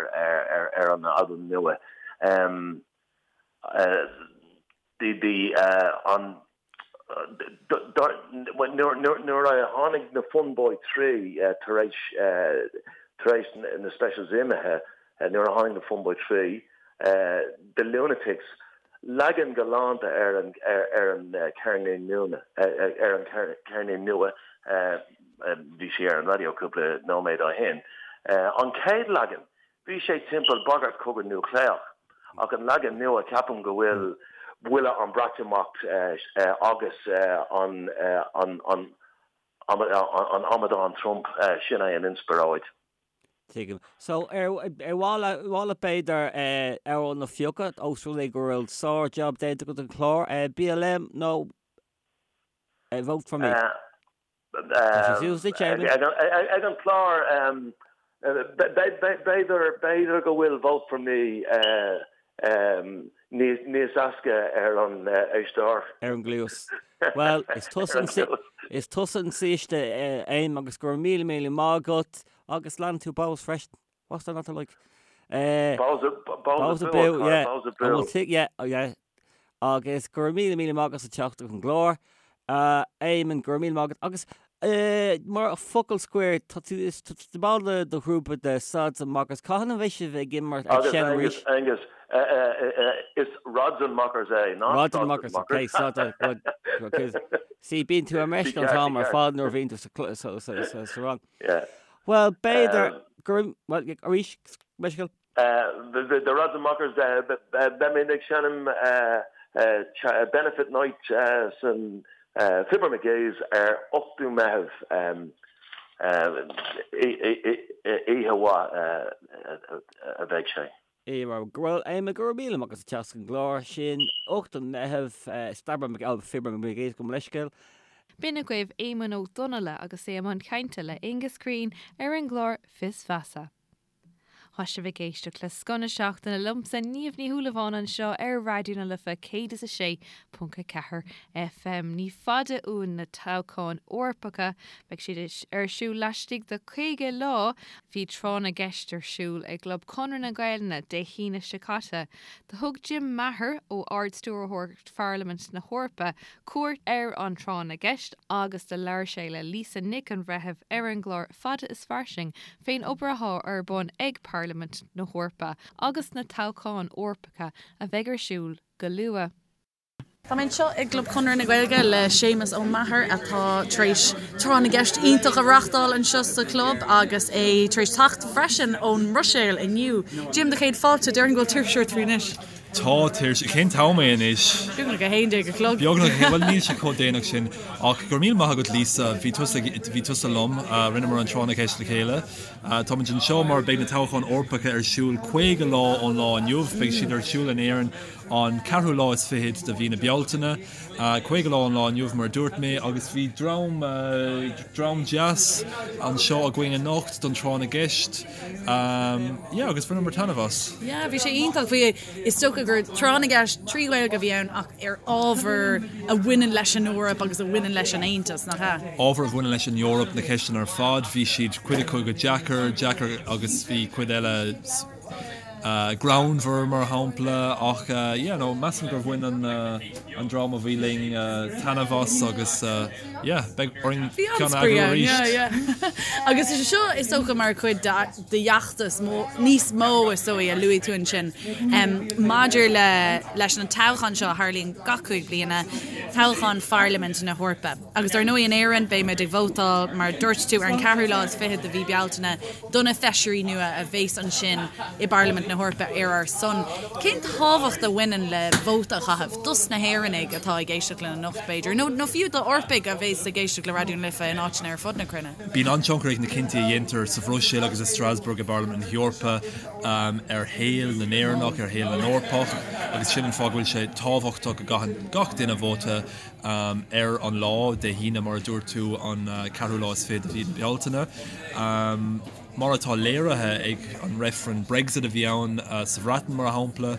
ar an albam nua. The an Nuair a tháinig na Fun Boy 3 tar éis tar éis na Specials imithe, nuair a tháinig na Fun Boy 3, The Lunatics, leagan galánta ar an ar an ceirnín nua ar an ceirnín nua, bhí sé ar an raidió cúpla nóiméad ó shin, an chéad leagan Bhí sé timpeall bagairt cogadh núicléach, ach an leagan nua ceapaim go bhfuil buille an Breatimeacht agus an an amadán Trump, sin é an inspioráid. Tuigim. So, ar mhaith leat b'fhéidir amhrán a phiocadh, ós rud é go bhfuil sár-jab déanta agat an clár, BLM nó Vote for Me? Tá sé suas duit, Éamonn. Ag an clár, b'fhéidir go bhfuil Vote for Me níos éasca ar an éisteoir. Ar an gcluas. Bhuel, is tusa is tusa an saoiste, Éamonn, agus go raibh míle míle maith agat agus leanann tú Bohs freisin. What's there not to like? Bohs abú, yeah. Bohs abú. Yeah, yeah. Agus go raibh míle míle maith agat as teacht chuig an gclár. Éamonn, go raibh míle maith agat. Agus mar focal scoir, tá tú is tá tú ball de do ghrúpa de Sods and Mockers. Cathain a bheidh sibh ag imirt ag Agus seinm arís? Angus, Angus, is Rods and Mockers é, not Rods and Mockers, okay, so good, okay. See, bíonn tú ar meisce an t-am ar fad nuair a bhíonn tú sa, sa, sa, sa, sa rang. Yeah. Well, b'fhéidir go raibh, well, arís, meisce. The Rods and Mockers, beimid ag seinm Benefit Night san Fibber McGee's ar 8ú Meitheamh. Oíche mhaith a bheidh sé. Bhuel, Éamonn, go raibh míle maith agat as teacht chuig an gclár sin, 8ú Meitheamh, Stabber Mc, Fibber McGee's, gabh mo leithscéal. B'in agaibh Éamonn Ó Donnaile agus é i mbun cainte le Aengus Crean ar an gclár Fios Feasa. Tá sibh ag éisteacht le Scoth na Seachtaine liomsa, Niamh Ní Shúilleabháin anseo ar Raidió na Life 106.4 FM. Ní fada uainn na toghcháin Eorpacha. Beidh siad ar siúl laistigh de 50 lá. Bhí tráth na gceist ar siúl i gClub Chonradh na Gaelainne Dé hAoine seo caite. Do thug Jim Maher ó Ard-Stiúrthóireacht Pharlaimint na hEorpa cuairt ar an tráth na gceist agus do labhair sé le Lisa Nic an Bhreithimh ar an gclár Fada is Fairsing fén obair athá ar bun ag Parlaimint na hEorpa agus na toghcháin Eorpacha a bheidh ar siúl go luath. Tá mé anseo i gClub Chonradh na Gaeilge le Séamus Ó Meachair atá tar éis tráth na gceist iontach a reáchtáil anseo sa chlub agus é tar éis teacht freisin ón mBruiséil inniu. Jim, do chéad fáilte, déarfainn go bhfuil tuirse ort faoi anois. Tá tuirse. Cén t-am é anois? Beagnach 11 a chlog. Beagnach, bhuel níl sé chomh déanach sin. Ach go raibh míle maith agat Lisa, bhí tusa, bhí tusa liom, rinneamar an tráth na gceist le chéile. Táimid anseo mar beidh na toghcháin Eorpacha ar siúl 50 lá ón lá inniu. Beidh siad ar siúl in Éirinn an ceathrú lá is fichead de mhí na Bealtaine. 50 lá ón lá inniu mar a dúirt mé agus bhí dream, dream deas anseo againn anocht don tráth na gceist. Yeah, agus bhaineamar taitneamh as. Yeah, bhí sé iontach. Bhí, is dócha gur tráth na gceist trí Ghaeilge a bhí ann ach ar ábhar a bhaineann leis an Eoraip agus a bhaineann leis an Aontas, nach ea? Ábhar a bhaineann leis an Eoraip, na ceisteanna ar fad. Bhí siad, cuid acu go deacair, deacair agus bhí cuid eile greannmhar mar shampla ach yeah, no, measaim gur bhain an, an dream a bhí linn taitneamh as agus yeah, beidh orainn ceann a eagrú arís. Yeah, yeah. Agus is é seo is dócha mar chuid d'fheachtas níos mó is dóigh a luaigh tú ansin maidir le leis an toghchán seo a tharlaíonn gach 5 bliana, toghchán Pharlaimint na hEorpa. Agus ar ndóigh in Éirinn beimid ag vótáil mar a dúirt tú ar an ceathrú lá is fichead de mhí Bealtaine do na feisirí nua a bheas ansin i bParlaimint na hEorpa ar ár son. Cén tábhacht a bhaineann le vóta a chaitheamh dos na hÉireannaigh atá ag éisteacht linn anocht, b'fhéidir, nó nó fiú d'Eorpaigh a bheas ag éisteacht le Raidió na Life in áiteanna ar fud na cruinne? Bíonn an-tionchar ag na cinntí a dhéantar sa Bhruiséil agus i Strasbourg i bParlaimint na hEorpa ar shaol na nÉireannach, ar shaol na nEorpach agus sin an fáth go bhfuil sé tábhachtach go gcaitheann gach duine vóta. ar an lá, Dé hAoine mar a dúirt tú, an ceathrú lá is fiche de mhí na Bealtaine. Mar atá léirithe ag an reifreann Brexit a bhí ann sa Bhreatain, mar shampla,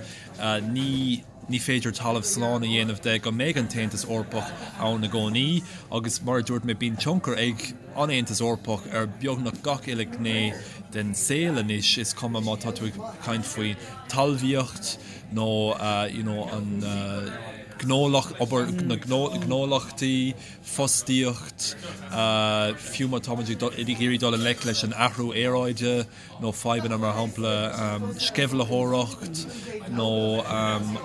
ní ní féidir talamh slán a dhéanamh de go mbeidh an tAontas Eorpach ann i gcónaí agus mar a dúirt mé bíonn tionchar ag an Aontas Eorpach ar beagnach gach uile ghné den saol anois, is cuma má tá tú ag caint faoi talmhaíocht nó you know an gnólacht, obair na gnólachtaí, fostaíocht, fiú má táimid ag iarraidh dul i ngleic leis an athrú aeráide nó fadhbanna mar shampla sceimhlitheoireacht nó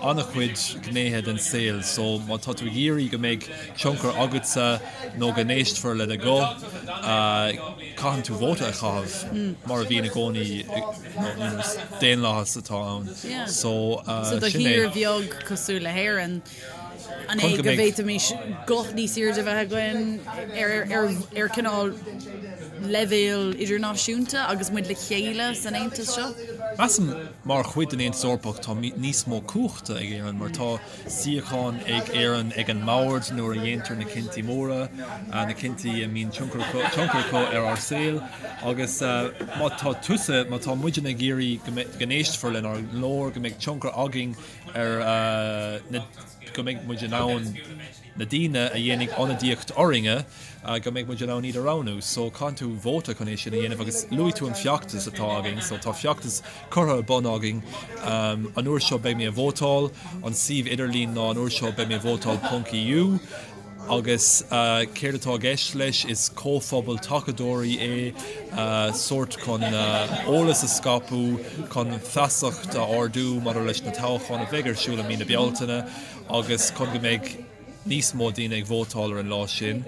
an-chuid gnéithe den saol. So má tá tú ag iarraidh go mbeidh tionchar agatsa nó go n-éistfear le do ghuth, caitheann tú vóta a chaitheamh mar a bhíonn i gcónaí nó daonlathas atá ann. So So do sin é. thír bheag cosúil le hÉirinn. An é go bhféadfaimis guth níos airde a bheith againn ar cineál leibhéal idirnáisiúnta agus muid le chéile san Aontas seo? Measaim mar chuid den Aontas Eorpach tá níos mó cumhachta ag Éirinn mar tá suíochán ag Éirinn ag an mbord nuair a dhéantar na cinntí móra, na cinntí a mbíonn tionchar acu ar ár saol agus má tá tusa, má tá muidne ag iarraidh go n-éistfear lenár nglór, go mbeidh tionchar againn ar na, go mbeidh muid in ann na daoine a dhéanfaidh ionadaíocht orainne, go mbeidh muid in ann iad a roghnú. So caitheann tú vóta chun é sin a dhéanamh agus luaigh tú an feachtas atá againn, so tá feachtas curtha ar bun againn. An uair seo beidh mé ag vótáil, an suíomh idirlín ná an uair seo beidh mé ag vótáil ponc EU. Agus céard atá i gceist leis? Is comhphobal tacadóirí é, sórt chun eolas a scaipeadh, chun feasacht a ardú maidir leis na toghcháin a bheidh ar siúl i mí na Bealtaine agus chun go mbeidh níos mó daoine ag vótáil ar an lá sin.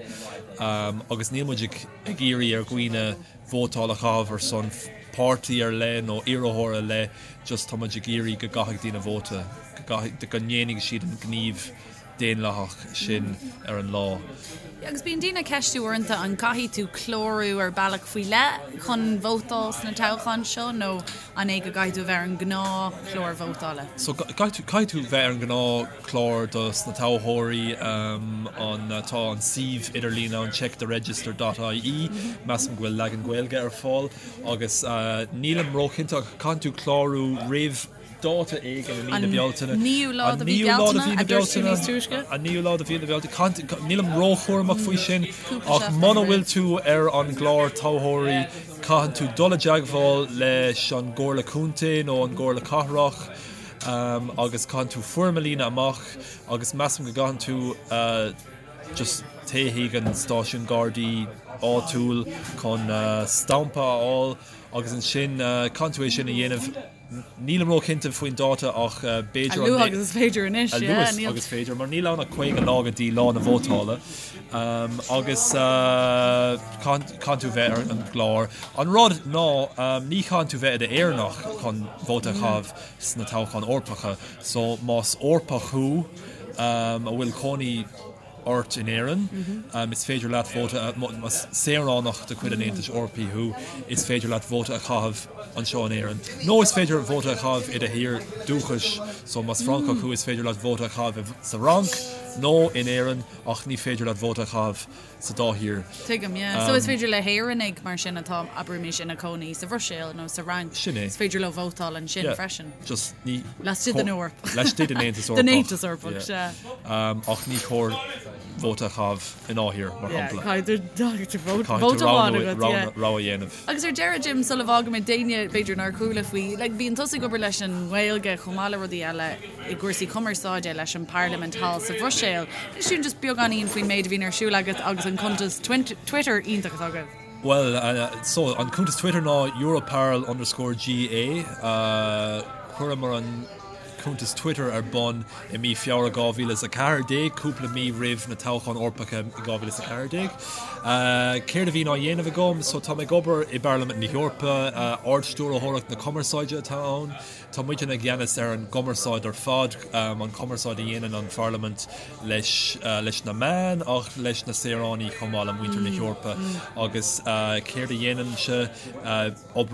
Agus níl muid ag iarraidh ar dhaoine vótáil a chaitheamh ar son páirtí ar leith nó iarrthóir ar leith, just tá muid ag iarraidh go gcaithfidh daoine vóta, go ndéanfaidh siad an gníomh daonlathach sin ar an lá. Agus bíonn daoine ag ceistiú uaireanta an gcaithfidh tú clárú ar bealach faoi leith chun vótáil sna toghcháin seo nó an é go gcaithfidh tú a bheith ar an ngnáthchlár vótála? So caithfidh tú bheith ar an ngnáthchlár dos na toghthóirí. An tá an suíomh idirlín ann checktheregister dot ie, measaim go bhfuil leagan Gaeilge ar fáil agus nílim róchinnte ach caithfidh tú clárú roimh dáta éigin i mí na Bealtaine. An naoú lá de mhí Bealtaine, a dúirt tú níos túisce. An naoú lá de mhí na Bealtaine. Nílim róchúramach faoi sin, ach muna bhfuil tú ar an gclár toghthóirí, caitheann tú dul i dteagmháil leis an gComhairle Contae nó an gComhairle Cathrach agus caitheann tú foirm a líonadh amach agus measaim go gcaitheann tú just téigh chuig an stáisiún Gardaí áitiúil chun stampa a fháil agus ansin caitheann tú é sin a dhéanamh. Nílim róchinnte faoin dáta ach b'fhéidir an. A luaithe agus is féidir anois, yeah. A luaithe agus is féidir, mar níl ann ach 50 lá go dtí lá na vótála agus caitheann tú bheith ar an gclár. An rud ná ní chaitheann tú bheith i d'Éireannach chun vóta a chaitheamh sna toghcháin Eorpacha so más Eorpach thú a bhfuil cónaí ort in Éirinn. Is féidir leat vóta a, más saoránach de chuid an Aontais Eorpaigh thú, is féidir leat vóta a chaitheamh anseo in Éirinn. Nó is féidir vóta a chaitheamh i do thír dúchais, so más Francach thú is féidir leat vóta a chaitheamh sa Fhrainc nó in Éirinn ach ní féidir leat vóta a chaitheamh sa dá thír. Tuigim, yeah. So is féidir le hÉireannaigh mar sin atá, abraimis, ina cónaí sa Bhruiséil nó sa Fhrainc, Sin é. is féidir leo vótáil ansin Yeah. freisin. Just ní. Laistigh den Eoraip. Laistigh den Aontas Eorpach. Den Aontas Eorpach, sea. Ach ní chóir vóta a chaitheamh i ndá thír, mar shampla. Caithfidh tú vóta amháin agat, yeah. Rogha a dhéanamh. Agus ar deireadh, Jim, sula bhfágaimid d'éinne b'fhéidir nár chuala faoi, like, bíonn tusa ag obair leis an nGaeilge chomh maith le rudaí eile i gcúrsaí cumarsáide leis an bParlaimint thall sa Bhruiséil. Inis dúinn just beagáinín faoin méid a bhíonn ar siúl agat agus an cuntas Twitter iontach atá agaibh. Bhuel, so, an cuntas Twitter ná Europarl underscore GA. Chuireamar an cuntas Twitter ar bun i mí Feabhra 2014, cúpla mí roimh na toghcháin Eorpacha i 2014. Céard a bhíonn á dhéanamh agam? So, tá mé ag obair i bParlaimint na hEorpa, Ard-Stiúrthóireacht na Cumarsáide atá ann. Tá muidne i gceannas ar an gcumarsáid ar fad, an cumarsáid a dhéanann an Pharlaimint leis leis na meáin ach leis na saoránaigh chomh maith, le muintir na hEorpa. Agus céard a dhéanaimse?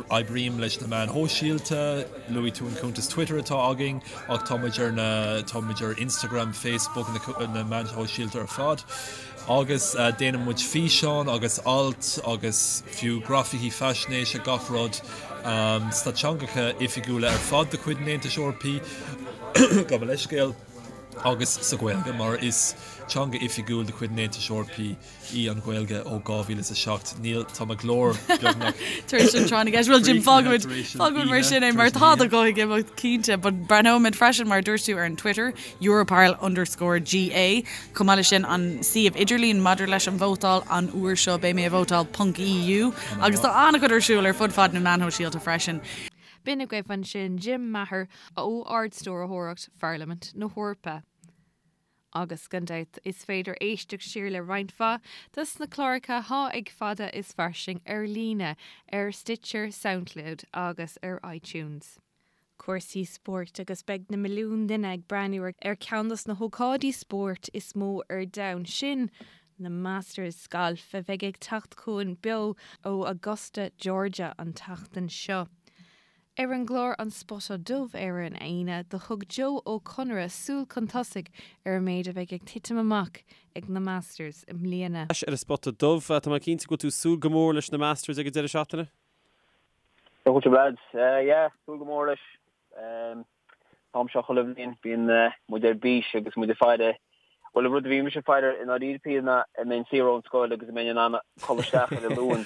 Oibrím leis na meáin shóisialta, luaigh tú an cuntas Twitter atá againn ach tá muid ar na, tá muid ar Instagram, Facebook, na meáin shóisialta ar fad. Agus déanann muid físeáin agus ailt agus fiú grafaicí faisnéise, gach rud sna teangacha oifigiúla ar fad de chuid an Aontais Eorpaigh, gabh mo leithscéal, agus sa Ghaeilge, mar is teanga oifigiúil de chuid an Aontais Eorpaigh í an Ghaeilge ó 2007. Níl, tá mo ghlór beagnach. Tar éis an tráth na gceist. Bhuel, Jim, fágfaimid, fágfaimid mar sin é, mar tá do ghuth ag imeacht, cinnte, but breathnóimid freisin, mar a dúirt tú, ar an Twitter, Europarl underscore GA. Chomh maith leis sin, an suíomh idirlín maidir leis an vótáil, an uair seo beidh mé ag vótáil ponc EU. Agus tá an-chuid ar siúl ar fud fad na meán shóisialta freisin. B'in agaibh ansin Jim Maher ó Ard-Stiúrthóireacht Pharlaimint na hEorpa. Agus gan dabht is féidir éisteacht siar le roinnt mhaith dos na cláracha thá ag Fada is Fairsing ar líne ar Stitcher, Soundcloud agus ar iTunes. Cúrsaí spóirt agus beidh na milliúin duine ag breathnú ar cheann dos na hócáidí spóirt is mó ar domhan, sin na Masters Gailf a bheidh ag teacht chugainn beo ó Augusta, Georgia an tseachtain seo. Ar an gclár An Spota Dubh ar an Aoine, do thug Joe Ó Conaire súil chun tosaigh ar an méid a bheidh ag titim amach ag na Masters i mbliana. Ar an Spota Dubh, tá mé cinnte go bhfuil tú ag súil go mór leis na Masters ag an deireadh seachtaine? Go bhfuil lads. Yeah, súil go mór leis. An t-am seo chuile bhliain bíonn muid ar bís agus muid ag faire, bhuel an rud a bhí mise ag faire i ndáiríre píre ná an mbeinn saor ón scoil agus an mbeinn in ann codladh isteach ar an Luan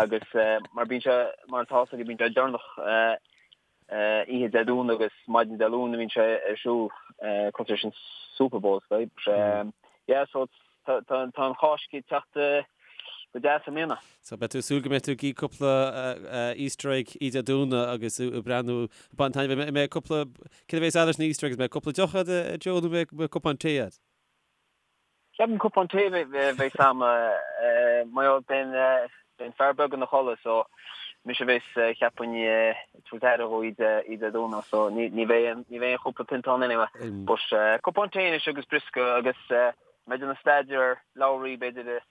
agus mar bíonn sé mar atá fhios agaibh bíonn sé deireanach oíche Dé Domhnaigh agus maidin Dé Luain a bhíonn sé ar siúl cosúil leis an Super Bowl is dóigh. Yeah so tá an Cháisc ag teacht go deas i mbliana. So beidh tú ag súil go mbeidh tú ag ithe cúpla Easter egg oíche Dé Domhnaigh agus ag breathnú ag baint taitneamh. An mbeidh cúpla, céard a bheas agat leis na Easter eggs? An mbeidh cúpla deoch agat a Joe nó an mbeidh cupán tae agat? Ceapaim cupán tae a bheas a'm mar gheall beidh an fear beag ina chodladh so mise a bheas cheapfainn ag tabhairt aire dhó oíche Dé Domhnaigh so ní bheidh ní bheidh aon chúpla pionta ann anyway. But cupán tae anois agus briosca agus mé ag déanamh staidéar ar Lowry b'fhéidir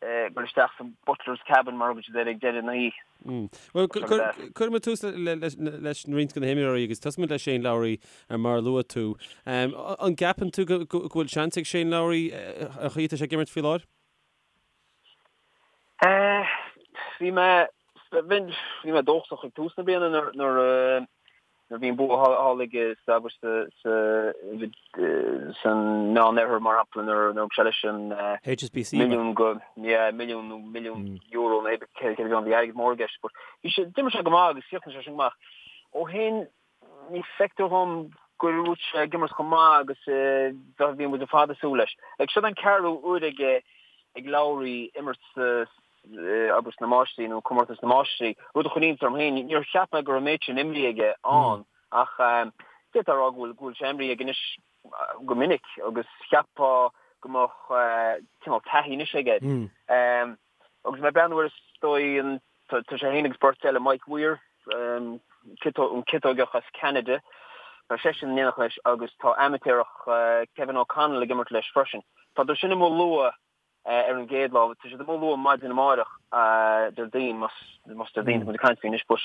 ag dul isteach sa Butler's Cabin mar a thugann siad air ag deireadh na hoíche. Bhuel, cuirfidh muid tús leis roinnt de na himreoirí agus tosóidh muid le Shane Lowry mar a luaigh tú. An gceapann tú go bhfuil seans ag Shane Lowry an chaoi atá sé ag imirt faoi láthair? Bhí mé bhí mé dóchasach ag tús na bliana nuair a Nuair a bhí an bua thall aige sa san Meán Oirthear mar shampla nuair a thug sé leis an HSBC milliún go yeah milliún nó milliún euro nó céard a bhí ann bhí airgead mór i gceist but bhí sé d'imir sé go maith agus chríochnaigh sé sin go maith. Ó shin ní feictear dhom go raibh sé ag imirt chomh maith agus a bhí muid ar fad ag súil leis. Like seo an ceathrú uair ag ag Lowry imirt sa abair sna Máistrí nó Comórtas na Máistrí, rud a chuir iontas orm féin. Níor cheap mé go raibh an méid sin imrithe aige ann ach d'fhéadfá a rá go bhfuil go bhfuil sé imrithe aige anois go minic agus cheapfá go mbeadh cineál taithí anois aige. Agus mé ag breathnú air is dóigh an tá sé féin agus beirt eile, Mike Weir, an ciotóigeach as Ceanada, tá seisean in éineacht leis agus tá amaitéarach Kevin O'Connell ag imirt leis freisin. Tá siad sin amuigh luath ar an gcéad lá. Tá siad amuigh luath maidin amáireach, Déardaoin, más Déardaoin atá muid ag caint faoi anois, but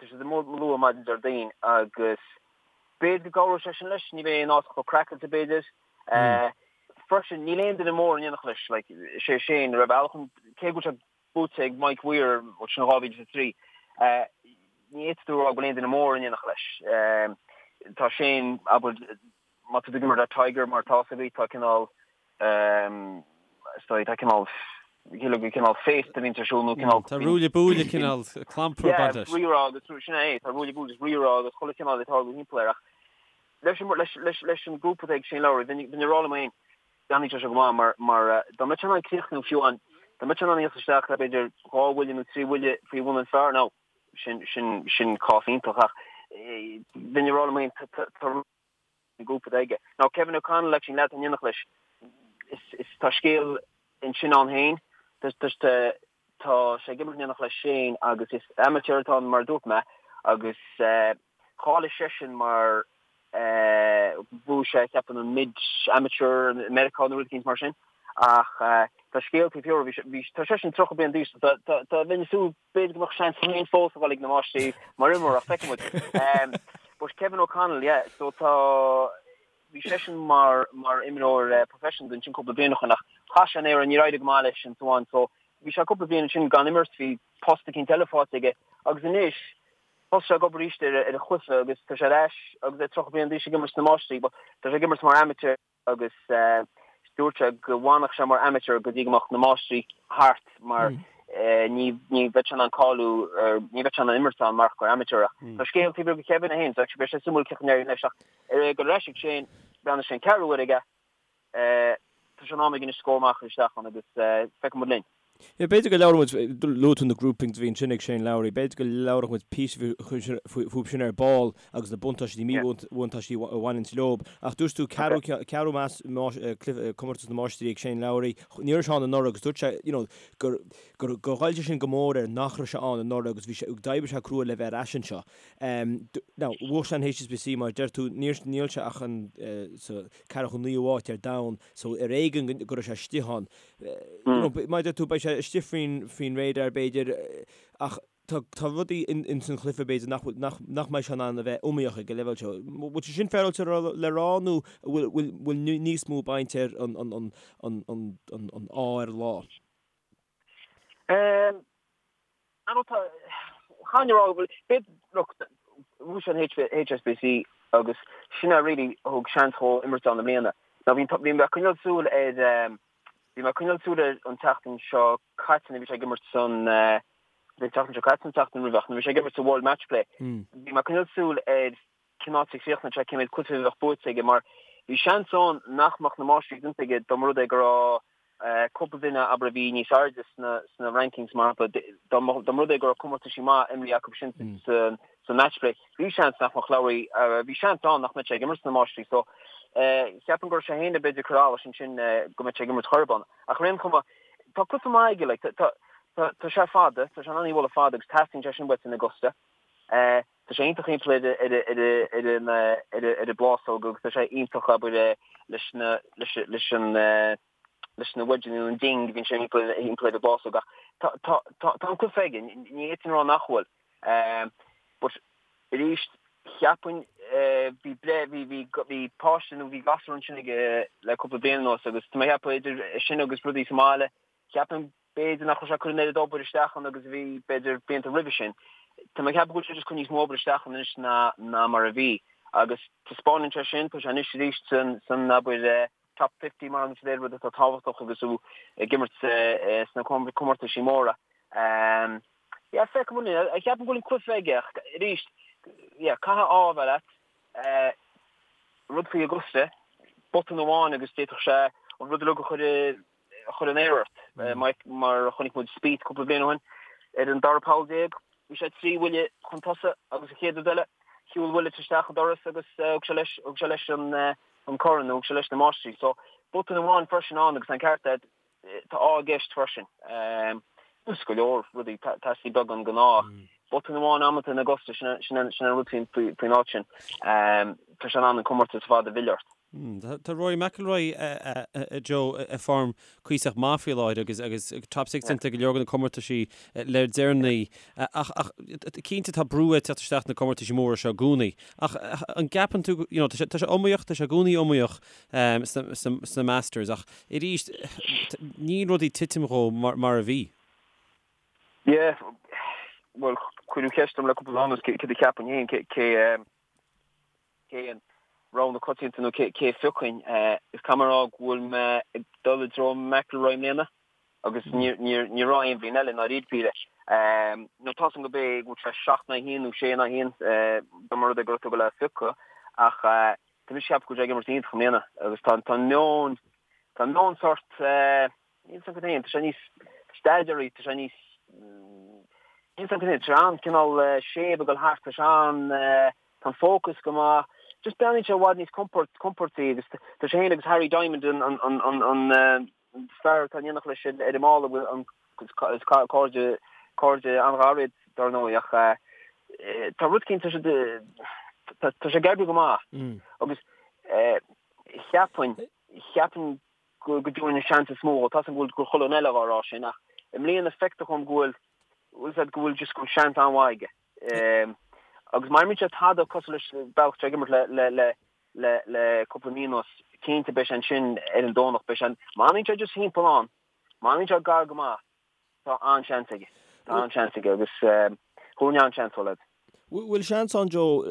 tá siad amuigh luath maidin Déardaoin agus b'fhéidir go gcabhróidh sé sin leis, ní bheidh an áit chomh craiceáilte b'fhéidir. Freisin, níl aon duine mór in éineacht leis, like, is é Shane, ar bhealach, cé go bhfuil sé buaite ag Mike Weir, sin 2003, ní fhéadfadh tú a rá go bhfuil aon duine mór in éineacht leis. Tá Shane, abair, má tá tú ag imirt le Tiger mar atá fhios agaibh, tá cineál, is dóigh, tá cineál, cineál, cineál féasta a bhíonns ar siúl nó cineál. Tá ruaille buaille cineál clampar ag baint leis. Yeah, rírá agus sin é, tá ruaille buaille agus rírá agus chuile chineál ag tarlú thimpeall air ach leis an, leis, leis, leis an grúpa atá ag Shane Lowry, bheinn, bheinn ag rá liom féin, déanfaidh sé seo go maith mar, mar dá mbeadh sé in ann críochnú fiú amháin, dá mbeadh sé in ann a thíocht isteach le b'fhéidir dhá bhuille nó trí bhuille faoi bhun an phar now, sin, sin, sin cás iontach ach bheinn ag rá liom féin, tá, tá an grúpa atá aige. Now Kevin O'Connell actually an leaid atá in éineacht leis, is, is, tá scéal ansin ann féin, tá, tá, tá, tá sé ag imirt in éineacht le Shane agus is amateur atá ann mar a dúirt mé agus cháiligh seisean mar bhuaigh sé ceapaim an mid amateur i Meiriceá nó rud eicínt mar sin ach tá scéal taobh thiar bhí tá seisean 30 bliain d'aois tá tá tá bheinn ag súil b'fhéidir go mbeadh seans féin fós a dhul ag na máistrí mar imreoir ach feicfidh muid. But Kevin O'Connell yeah so tá bhí seisean mar mar imreoir professional ansin cúpla bliain ó shin ach chaith sé an aer níor éirigh go maith leis and so on so bhí sé cúpla bliain ansin gan imirt bhí post eicínt eile faighte aige agus anois Thosaigh sé ag obair arís ar a chluiche agus tá sé ar ais agus é 30 bliain d'aois ag imirt sna Máistrí. But tá sé ag imirt mar amateur agus dúirt sé go bhfanfadh sé mar amateur go dtí go mbeadh na Máistrí thart mar ní ní bheadh sé in ann cáiliú ní bheadh sé in ann imirt ann mar gur amateur ach tá scéal taobh thiar de Kevin é féin so actually beidh sé suimiúil cén chaoi a n-éireoidh leis ach ag dul ar ais ag Shane breathnaigh sé an ceathrú uair aige tá sé in am aige anois scór maith a chur isteach ann agus feicfidh muid linn. Yeah, b'fhéidir go labhróidh muid, luaigh tú na groupings a bhí ansin ag Shane Lowry, b'fhéidir go labhróidh muid píosa fúthu sin ar ball agus na buntáistí, míbhuntáistí a bhaineanns leob. Ach dúirt tú ceathrú, ceathrú comórtas na Máistrí ag Shane Lowry, ní raibh sé ann anuraidh agus dúirt sé, you know, gur, gur, gur ghoill sé sin go mór air nach raibh sé ann anuraidh agus bhí sé, d'oibrigh sé crua le bheith ar ais anseo. Now, bhuaigh sé an HSBC mar a deir tú, níor, níl sé ach an, sa ceathracha naoú háit ar domhan, so ar éigean go raibh sé istigh ann. Mar a deir tú, beidh sé istigh faoin, faoin radar b'fhéidir, ach tá, tá rudaí in, ins an chluiche b'fhéidir nach bhfuil, nach, nach mbeidh sé in ann a bheith iomaíoch ag an leibhéal seo. Bhfuil sé sin féaráilte le rá nó bhfuil, bhfuil, bhfuil níos mó baint ar an, an, an, an, an, an, an ádh ar an lá? Um, I don't know, chan rá go bhfuil, b'fhéidir, look, bhuaigh sé an HSBC agus sin a really thug seans dhó imirt ann i mbliana. Now bhí, bhí mé ag coinneáil súil ar, bhí mé ag coinneáil súil air an tseachtain seo caite nuair a bhí sé ag imirt san, an tseachtain seo caite nó an tseachtain roimhe ach nuair a bhí sé ag imirt sa World Matchplay, bhí mé ag coinneáil súil ar cén áit a chríochnódh sé, cé mhéad cluiche a bheadh buaite aige mar bhí seans ann nach mbeadh na Máistrí déanta aige dá mba rud é go raibh cúpla duine, abair, a bhí níos airde sna sna rankings, mar shampla, dá mba dá mba rud é go raibh comórtaisí maith imrithe acu sin sa sa matchplay, bhí seans nach mbeadh Lowry, bhí seans ann nach mbeadh sé ag imirt sna Máistrí. So, cheapfainn go raibh sé féin b'fhéidir ag cur allais ansin go mbeadh sé ag imirt chor ar bith ann. Ach ar aon chuma, tá cluiche maith aige, like, tá tá tá sé fada, tá sé in ann í a bhualadh fada agus teastaíonn sé sin uait in Augusta. Tá sé iontach thimpeall ar an ar an bplásóg agus tá sé iontach abair leis na leis leis an leis na wedge nó an ding a bhíonn sé thimpeall thimpeall ar an bplásóg ach tá tá tá tá an cluiche aige ní fhéadfainn a rá nach bhfuil. But arís cheapfainn bhí breith bhí bhí bhí páiste nó bhí gasúr ansin aige le cúpla bliain anuas agus tá mé ag ceapadh idir sin agus rudaí sa mbaile cheapfainn B'fhéidir nach raibh sé ag cur an oiread obair isteach ann agus a bhí, b'fhéidir, blianta roimhe sin. Tá mé ag ceapadh go bhfuil sé just ag cur níos mó obair isteach ann anois ná ná mar a bhí. Agus taispeánann sé sin, tá sé anois arís san, san, abair, top 50 mar an rud atá tábhachtach agus tú ag imirt sna comórtaisí móra. Yeah, feicfidh muid. Ceapaim go bhfuil an cluiche aige ach arís, yeah, caithfidh ádh a bheith leat. Rud faoi Augusta, botún amháin agus d'fhéadfadh sé an rud uilig a chur i a chur in aer ort. Mar a chonaic muid Spieth cúpla bliain ó shin, ar an dara poll bhí sé 3 bhuille chun tosaigh agus an chéad rud eile, shiúil Willett isteach an doras agus thug sé leis, thug sé leis an corn, nó thug sé leis na Máistrí. So, botún amháin freisin ann agus an ceart agat, tá ádh i gceist freisin. Agus go leor rudaí, teastaíonn beagán den ádh. Botún amháin amanta in Augusta, sin an rud faoin áit sin. Tá sé in ann an comórtas ar fad a mhilleadh ort. Tá Rory McIlroy, a Joe, i form cuíosach maith faoi láthair agus agus top 6 déanta ag go leor de na comórtaisí le deireanaí. Ach ach cinnte tá brú ag teacht isteach na comórtaisí móra seo i gcónaí. Ach an gceapann tú, you know, tá sé tá sé iomaíoch, tá sé i gcónaí iomaíoch sna sna sna Masters ach arís níl rudaí ag titim dhó mar mar a bhí. Yeah, bhuel cuireadh ceist orm le cúpla lá anuas cé céard a cheapfainn féin, cé cé cé an rogha na coitianta nó cé a phiocfainn. Is caithfidh mé a rá go bhfuil mé ag dul i dtreo McIlroy i mbliana agus ní raibh aon bhliain eile i ndáiríre píre. Nó tá 's agam go b'é go bhfuil sé 7 in aghaidh 1 nó 6 in aghaidh 1 dá mba rud é go raibh tú ag dul é a phiocadh ach tá mise ag ceapadh go bhfuil sé ag imirt iontach i mbliana agus tá an meon tá an meon sort Níl 's agam féin, tá sé níos steadier, tá sé níos, níl 's agam féin, tá sé an-cineál séimh ag dul thart, tá sé an, tá an focus go maith, just breathnaíonn sé i bhfad níos compord, compordaí agus tá sé féin agus Harry Diamond an, an, an, an, an fear atá in éineacht leis ar an mballa, bhfuil an, is cairde, cairde an-ghar iad dar ndóigh ach tá rud éicint, tá sé, tá sé ag oibriú go maith agus cheapfainn, cheapfainn go dtabharfainn an seans is mó dhó. Tá 's agam go bhfuil chuile dhuine eile dhá rá sin ach i mbliana feictear dhom go bhfuil, bhfuil 's agat, go bhfuil just go bhfuil seans an-mhaith aige. Agus má imríonn sé tada cosúil leis an bealach atá sé ag imirt le le le le le cúpla mí anuas, cinnte beidh sé ansin ar an Domhnach, beidh sé, má fhanann sé just thimpeall ann, má fhanann sé gar go maith, Tá an-seans aige. Tá an-seans aige agus thabharfainn an-seans dó, lads. Bhfuil seans ann, Joe,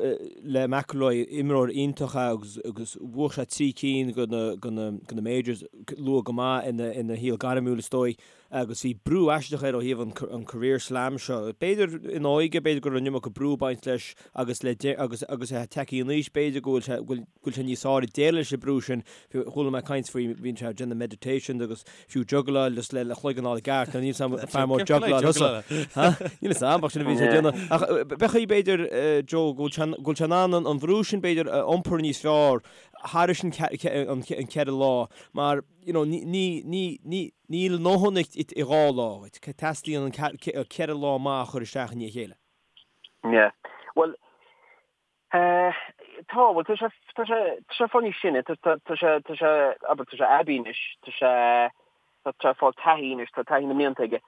le McIlroy, imreoir iontach é agus agus bhuaigh sé 3 cinn de na de na de na majors luath go maith ina ina shaol gairmiúil is dóigh. agus bhí brú aisteach air ó thaobh an career slam seo. B'fhéidir ina óige, b'fhéidir go raibh an iomarca brú ag baint leis agus le agus agus é tagtha in aois, b'fhéidir go bhfuil sé go bhfuil sé níos fearr ag déileáil leis an brú sin. Chuala mé caint faoi, bhíonn sé ag déanamh meditations agus fiú juggláil just le le chloigeann a fháil i gceart. Níl 'fhios a'm fear mór juggláil thusa. Níl 'fhios a'm ach sin a bhíonn sé ag déanamh. Ach b'fhéidir b'fhéidir Joe go bhfuil sé go bhfuil sé in ann an bhrú sin b'fhéidir a iompar níos fearr thairis an ceithre lá mar you know ní ní ní ní níl a ndóthain i 2 lá dhuit. Teastaíonn an 4 lá maith a chur isteach i ndiaidh a chéile. Yeah. Bhuel, eh, tá, bhuel, tá sé, tá sé, tá sé fáil níos sine, tá, tá, tá sé, tá sé, abair, tá sé aibí anois, tá sé, tá sé ag fáil taithí anois, tá taithí na mblianta aige.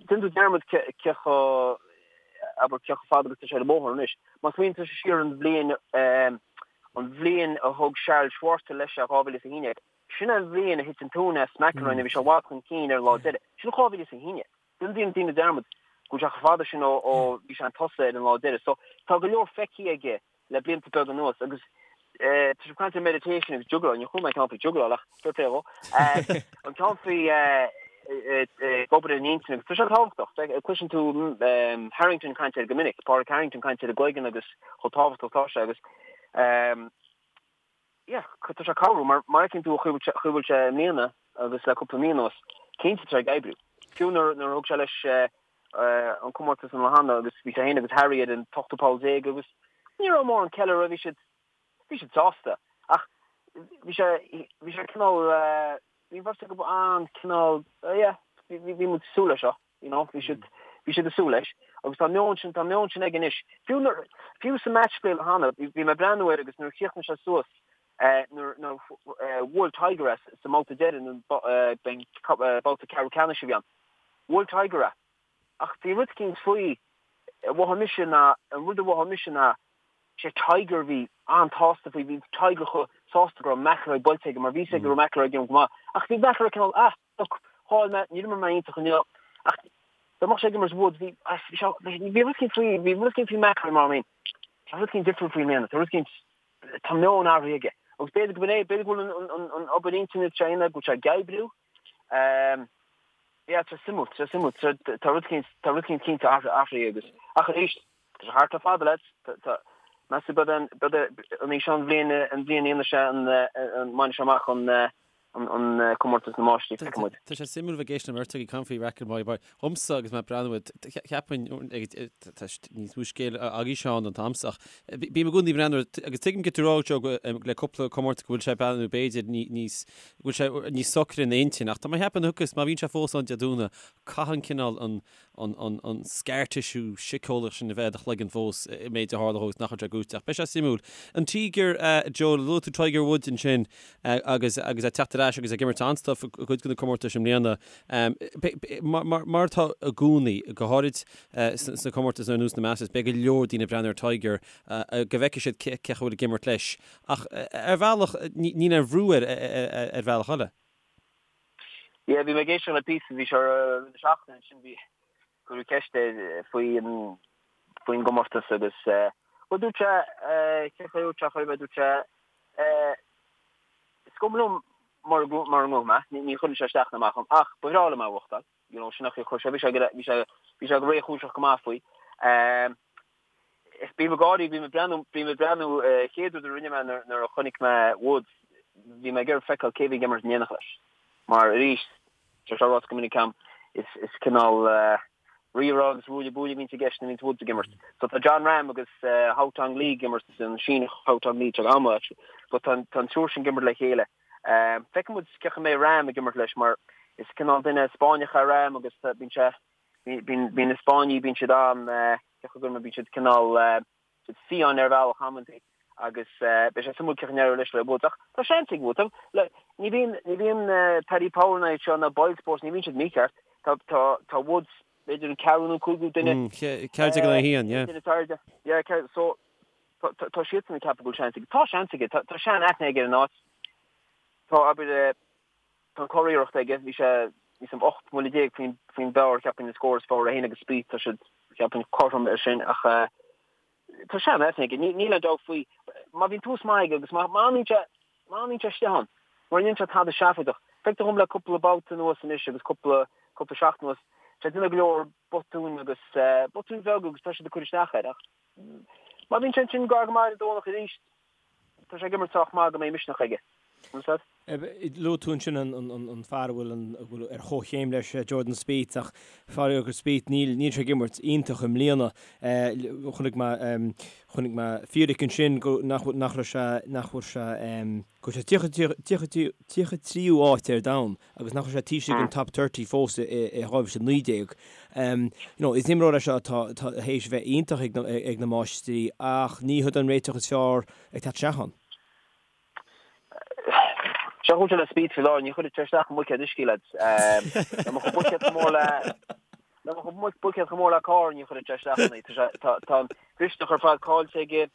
Déanann tú dearmad cé, cé chomh, abair, cé chomh fada agus tá sé ar an mbóthar anois. Má smaoiníonn tú siar an bhliain, eh, an bhliain a thug Charl Schwartzel leis é, 2011, sin an bhliain a thit an tóin as McIlroy nuair a bhí sé i bhfad chun cinn ar an lá deiridh. Sin 2011. Déanann daoine dearmad go bhfuil sé chomh fada sin ó bhí sé chun tosaigh ar an lá deiridh. So tá go leor feicthe aige le blianta beaga anuas agus tá sibh ag caint ar meditation agus juggláil, níor chuala mé an ceann faoi juggláil ach fair play dhó. An ceann faoi ag obair ar an intinn agus tá sé tábhachtach. Cloiseann tú Harrington ag caint air go minic, Pádraig Harrington ag caint ar an gcloigeann agus chomh tábhachtach atá sé agus yeah, tá sé ag cabhrú mar mar fheiceann tú an chaoi a bhfuil sé i mbliana agus le cúpla mí anuas, cinnte tá sé ag oibriú. Fiú nuair nuair a thug sé leis an comórtas an lá cheana agus bhí sé féin agus Harry ar an t-ochtú poll déag agus ní raibh mórán ceiliúradh, bhí siad bhí siad sásta ach bhí sé bhí sé cineál bhí an bheirt acu an-cineál yeah, bhí bhí muid ag súil leis seo. You know, bhí siad, bhí siad ag súil leis. Agus tá an meon sin, tá an meon sin aige anois. Fiú nuair, fiú sa match play cheana, bhí, bhí mé ag breathnú air agus nuair a chríochnaigh sé suas, eh, nuair, nuair eh, bhuail Tiger é sa mbabhta deiridh, nó eh, b'in babhta ceathrú ceannais a bhí ann. Bhuail Tiger é. Ach bhí rud eicínt faoi, a mhothaigh mise ná, an rud a mhothaigh mise ná, sé Tiger a bhí an-tsásta faoi, bhí Tiger chomh sásta go raibh McIlroy buailte aige mar bhí a fhios aige go raibh McIlroy ag imirt go maith. Ach bhí McIlroy cineál, ah, Look, chaill mé, níor imir mé iontach inniu, ach dá mbeadh sé ag imirt Woods, bhí, bhí sé, bhí rud eicínt faoi, bhí rud eicínt faoi McIlroy mar I mean, tá rud eicínt difriúil faoi i mbliana, tá rud eicínt, tá meon athraithe aige. Agus b'fhéidir go b'in é, b'fhéidir go bhfuil an, an, an obair intinne atá sé a dhéanamh, go bhfuil sé ag oibriú. Um, yeah, tá suimiúil, tá suimiúil, tá, tá rud eicínt, tá rud eicínt cinnte athraithe agus, ach arís, tá sé thart le fada, lads, tá, tá, meas tú b'fhéidir an, b'fhéidir an í seo an bhliain, an bhliain a dhéanfaidh sé an, an, mbainfidh sé amach an, an comórtas na máistrí, feicfidh muid. Tá sé suimiúil bheith ag éisteacht le beirt agaibh ag caint faoi McIlroy mar dhomsa agus mé ag breathnú air, cheapfainn tá níos mó scéal agaibh Seán an t-am seo ach bím i gcónaí ag breathnú air agus tuigim cad tá tú a rá Joe le cúpla comórtas go bhfuil sé ag breathnú b'fhéidir níos go bhfuil sé níos socra ina intinn ach tá mé ag ceapadh agus má bhíonn sé fós ann Dé Domhnaigh caitheann cineál an an scar tissue síceolaíoch sin a bheith i do chloigeann fós an méid a tharla dhó agus nach raibh sé gnóite. Ach beidh sé suimiúil. An Tíogar, Joe, luaigh tú Tiger Woods ansin agus agus é ag teacht ar ais agus ag imirt an-stuif i gcuid de na comórtais i mbliana. Mar atá i gcónaí, go háirid sna comórtais ar nós na Masters, beidh go leor daoine ag breathnú ar Tiger go bhfeicfidh siad cé acu a bhfuil ag imirt leis. Ach ar bhealach, níl aon bhrú air ar bhealach eile. Yeah, bhí mé ag éisteacht le píosa, bhí sé ar rith na seachtaine ansin, bhí, cuireadh ceist air faoi an, faoin gcomórtas agus, bhuel dúirt sé, cén chaoi a dúirt sé, chuir mé, dúirt sé, is cuma liom mura, mura ngnóthóidh mé, ní, ní chuireann sé isteach ná amach orm, ach ba bhreá liom é a bhuachtáil, you know, sin an chaoi a chuir sé, bhí sé, bhí sé, bhí sé go réchúiseach go maith faoi. Bím ag gáirí, bím ag breathnú, bím ag breathnú, chéad rud a rinne mé nuair a chonaic mé Woods, bhí mé ag iarraidh feiceáil cé bhí ag imirt in éineacht leis. Mar arís, tá sé ráite go minic agam, is is cineál rírá agus ruaille buaille a bhíonns i gceist nuair a bhíonns Woods ag imirt. So tá Jon Rahm agus Haotong Li ag imirt, an Síneach Haotong Li, tá an-mhaith actually, but tá an triúr sin ag imirt le chéile. Feicfidh muid cén chaoi a mbeidh Rahm ag imirt leis mar is cineál duine Spáinneach é Rahm agus bíonn sé, Bíonn na Spáinnigh, bíonn siad an, cén chaoi a gcuirfidh mé, bíonn siad cineál, siad fiáin ar bhealach amantaí agus beidh sé suimiúil cén chaoi a n-éireoidh leis le Woods. Ach tá seans ag Woods. Ní bhíonn, ní bhíonn Paddy Power ná iad seo ná Boyle Sports, ní bhíonn siad mícheart. Tá, tá, tá Woods b'fhéidir an ceathrú nó cúigiú duine. 14 in aghaidh 1, yeah. Duine is airde. Yeah, so tá, tá siadsan ag ceapadh go bhfuil seans aige. Tá seans aige, tá, tá sean-aithne aige ar an áit. Tá, abair, Tá an curiarracht aige, bhí sé níos mó 18 mbuille faoin faoin bpar, cheapfainn, an scór is fearr, é féin agus Spieth, tá siad, cheapfainn, cothrom ar sin ach tá sean-aithne aige, níl aon dabht faoi. Má bhíonn tús maith aige agus má má fhanann sé, má fhanann sé istigh ann, mura ndéanann sé tada seafóideach, Feictear dhom le cúpla babhta anuas anois agus cúpla cúpla seachtain anuas, tá sé ag déanamh go leor botúin agus botúin bheaga agus tá siad ag cur isteach air ach má bhíonn sé ansin gar go maith ar an Domhnach arís, tá sé ag imirt sách maith go mbeidh misneach aige. An Luaigh tú ansin an fear a bhfuil ar chomhchéim leis, Jordan Spieth, ach faraor do Spieth, níl sé ag imirt iontach i mbliana. Chonaic mé chonaic mé fíric ansin go nach nach raibh sé nach bhfuil sé go bhfuil sé 33ú áit ar domhan agus nach raibh sé taobh istigh den top 30 fós i 2019. You know, is imreoir é seo atá théis a bheith iontach ag na máistrí ach ní hiod an réiteach is fearr ag teacht isteach ann. Seo chúis le Spieth faoi láthair, ní chuirfeadh sé isteach i mbuicéad uisce, lads. Dá mbeadh an buicéad chomh mór le dá mbeadh an buicéad chomh mór le carr, ní chuirfeadh sé isteach ann é. Tá sé tá tá an mhisneach ar fad caillte aige.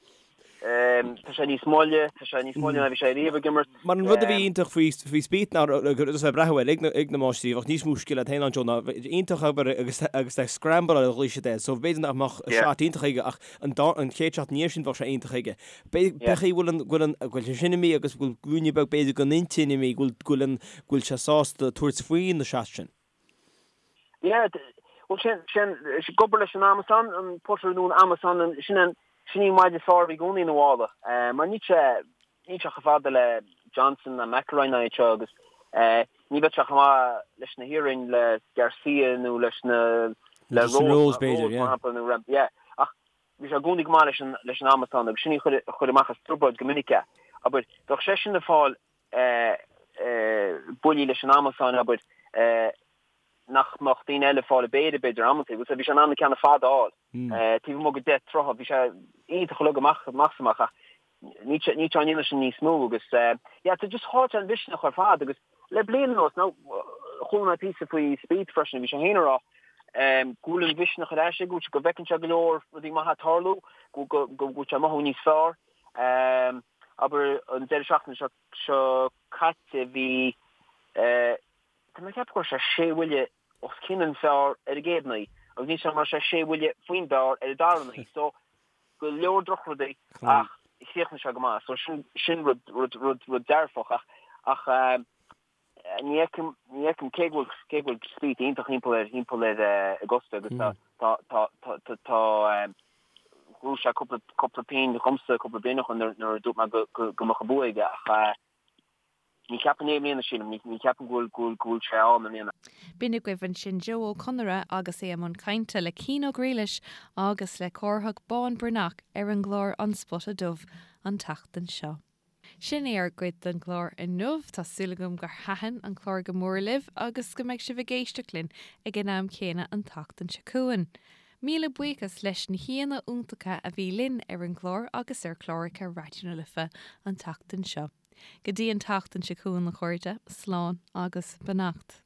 Tá sé níos moille, tá sé níos moille ná bhí sé riamh ag imirt. Mar an rud a bhí iontach faoi faoi Spieth ná agus bheith breathnú air ag na ag na máistrí, bheadh níos mó scil agat féin ann Joe ná iontach obair agus agus ag scramble ar a ghlaoigh siad air. So b'fhéidir nach mbeadh shot iontach aige ach an dá an chéad shot ina dhiaidh sin bheadh sé iontach aige. B'fhéidir go bhfuil an, go bhfuil an, go bhfuil sé sin imithe agus go bhfuil ruainne beag b'fhéidir den intinn imithe, go bhfuil, go bhfuil an, go bhfuil sé sásta tabhairt faoi na shots sin. Yeah, bhuel sin, sin, ag obair leis an amasán, an putter nó an amasán, an, sin an, sin í an maide is fearr a bhí i gcónaí ina mhála. Mar níl sé, níl sé chomh fada le Johnson ná McIlroy ná iad seo agus ní bheadh sé chomh maith leis na hiarainn le Garcia nó leis na, le Rose, Rose, b'fhéidir, mar shampla, nó Rahm, yeah. Ach Bhí sé i gcónaí go maith leis an leis an amasán agus sin í a chuir a chuir amach as trioblóid go minic é. Abair, bheadh seisean ag fáil buillí leis an amasán, abair, nach mbeadh daoine eile ag fáil i bpéire, b'fhéidir, amantaí. Bhuel, bhí sé in ann na ceanna fada a fháil. Taobh amuigh de 10 troithe, bhí sé iontach uilig amach amach is amach ach níl sé níl sé á ndéanamh sin níos mó agus yeah, tá just chaill sé an mhisneach ar fad agus le bliain anuas, now chuala mé píosa faoi Spieth freisin, bhí sé féin ag rá go bhfuil an mhisneach ar ais aige, go bhfuil sé, go bhfeiceann sé go leor rudaí maithe ag tarlú, go go go bhfuil sé ag mothú níos fearr. Abair an deireadh seachtaine seo seo caite bhí tá mé ag ceapadh go raibh sé sé bhuille os cionn an phar ar an gcéad naoi agus níl a fhios agam an raibh sé sé bhuille faoin bpar ar an dara naoi so go leor drochrudaí ach chríochnaigh sé go maith so sin sin rud rud rud rud dearfach ach ach ní fheicim ní fheicim cé go bhfuil cé go bhfuil Spieth iontach thimpeall air thimpeall ar Augusta agus tá tá tá tá tá tá ghnóthaigh sé cúpla cúpla pingin dhomsa cúpla bliain ó shin nuair nuair a dúirt mé go go go mbeadh an bua aige ach Ní cheapaim é i mbliana, sílim. Ní cheapaim go bhfuil go bhfuil sé ann i mbliana. B'in agaibh ansin Joe Ó Conaire agus é i mbun cainte le Cian Ó Griallais agus le Cárthach Bán Breathnach ar an gclár An Spota Dubh an tseachtain seo. Sin é ár gcuid den gclár inniu. Tá súil agam gur thaitin an clár go mór libh agus go mbeidh sibh ag éisteacht linn ag an am céanna an tseachtain seo chugainn. Míle buíochas leis na haíonna iontacha a bhí linn ar an gclár agus ar chláracha Raidió na Life an tseachtain seo. Go dtí an tseachtain seo chugainn a chairde, slán agus beannacht.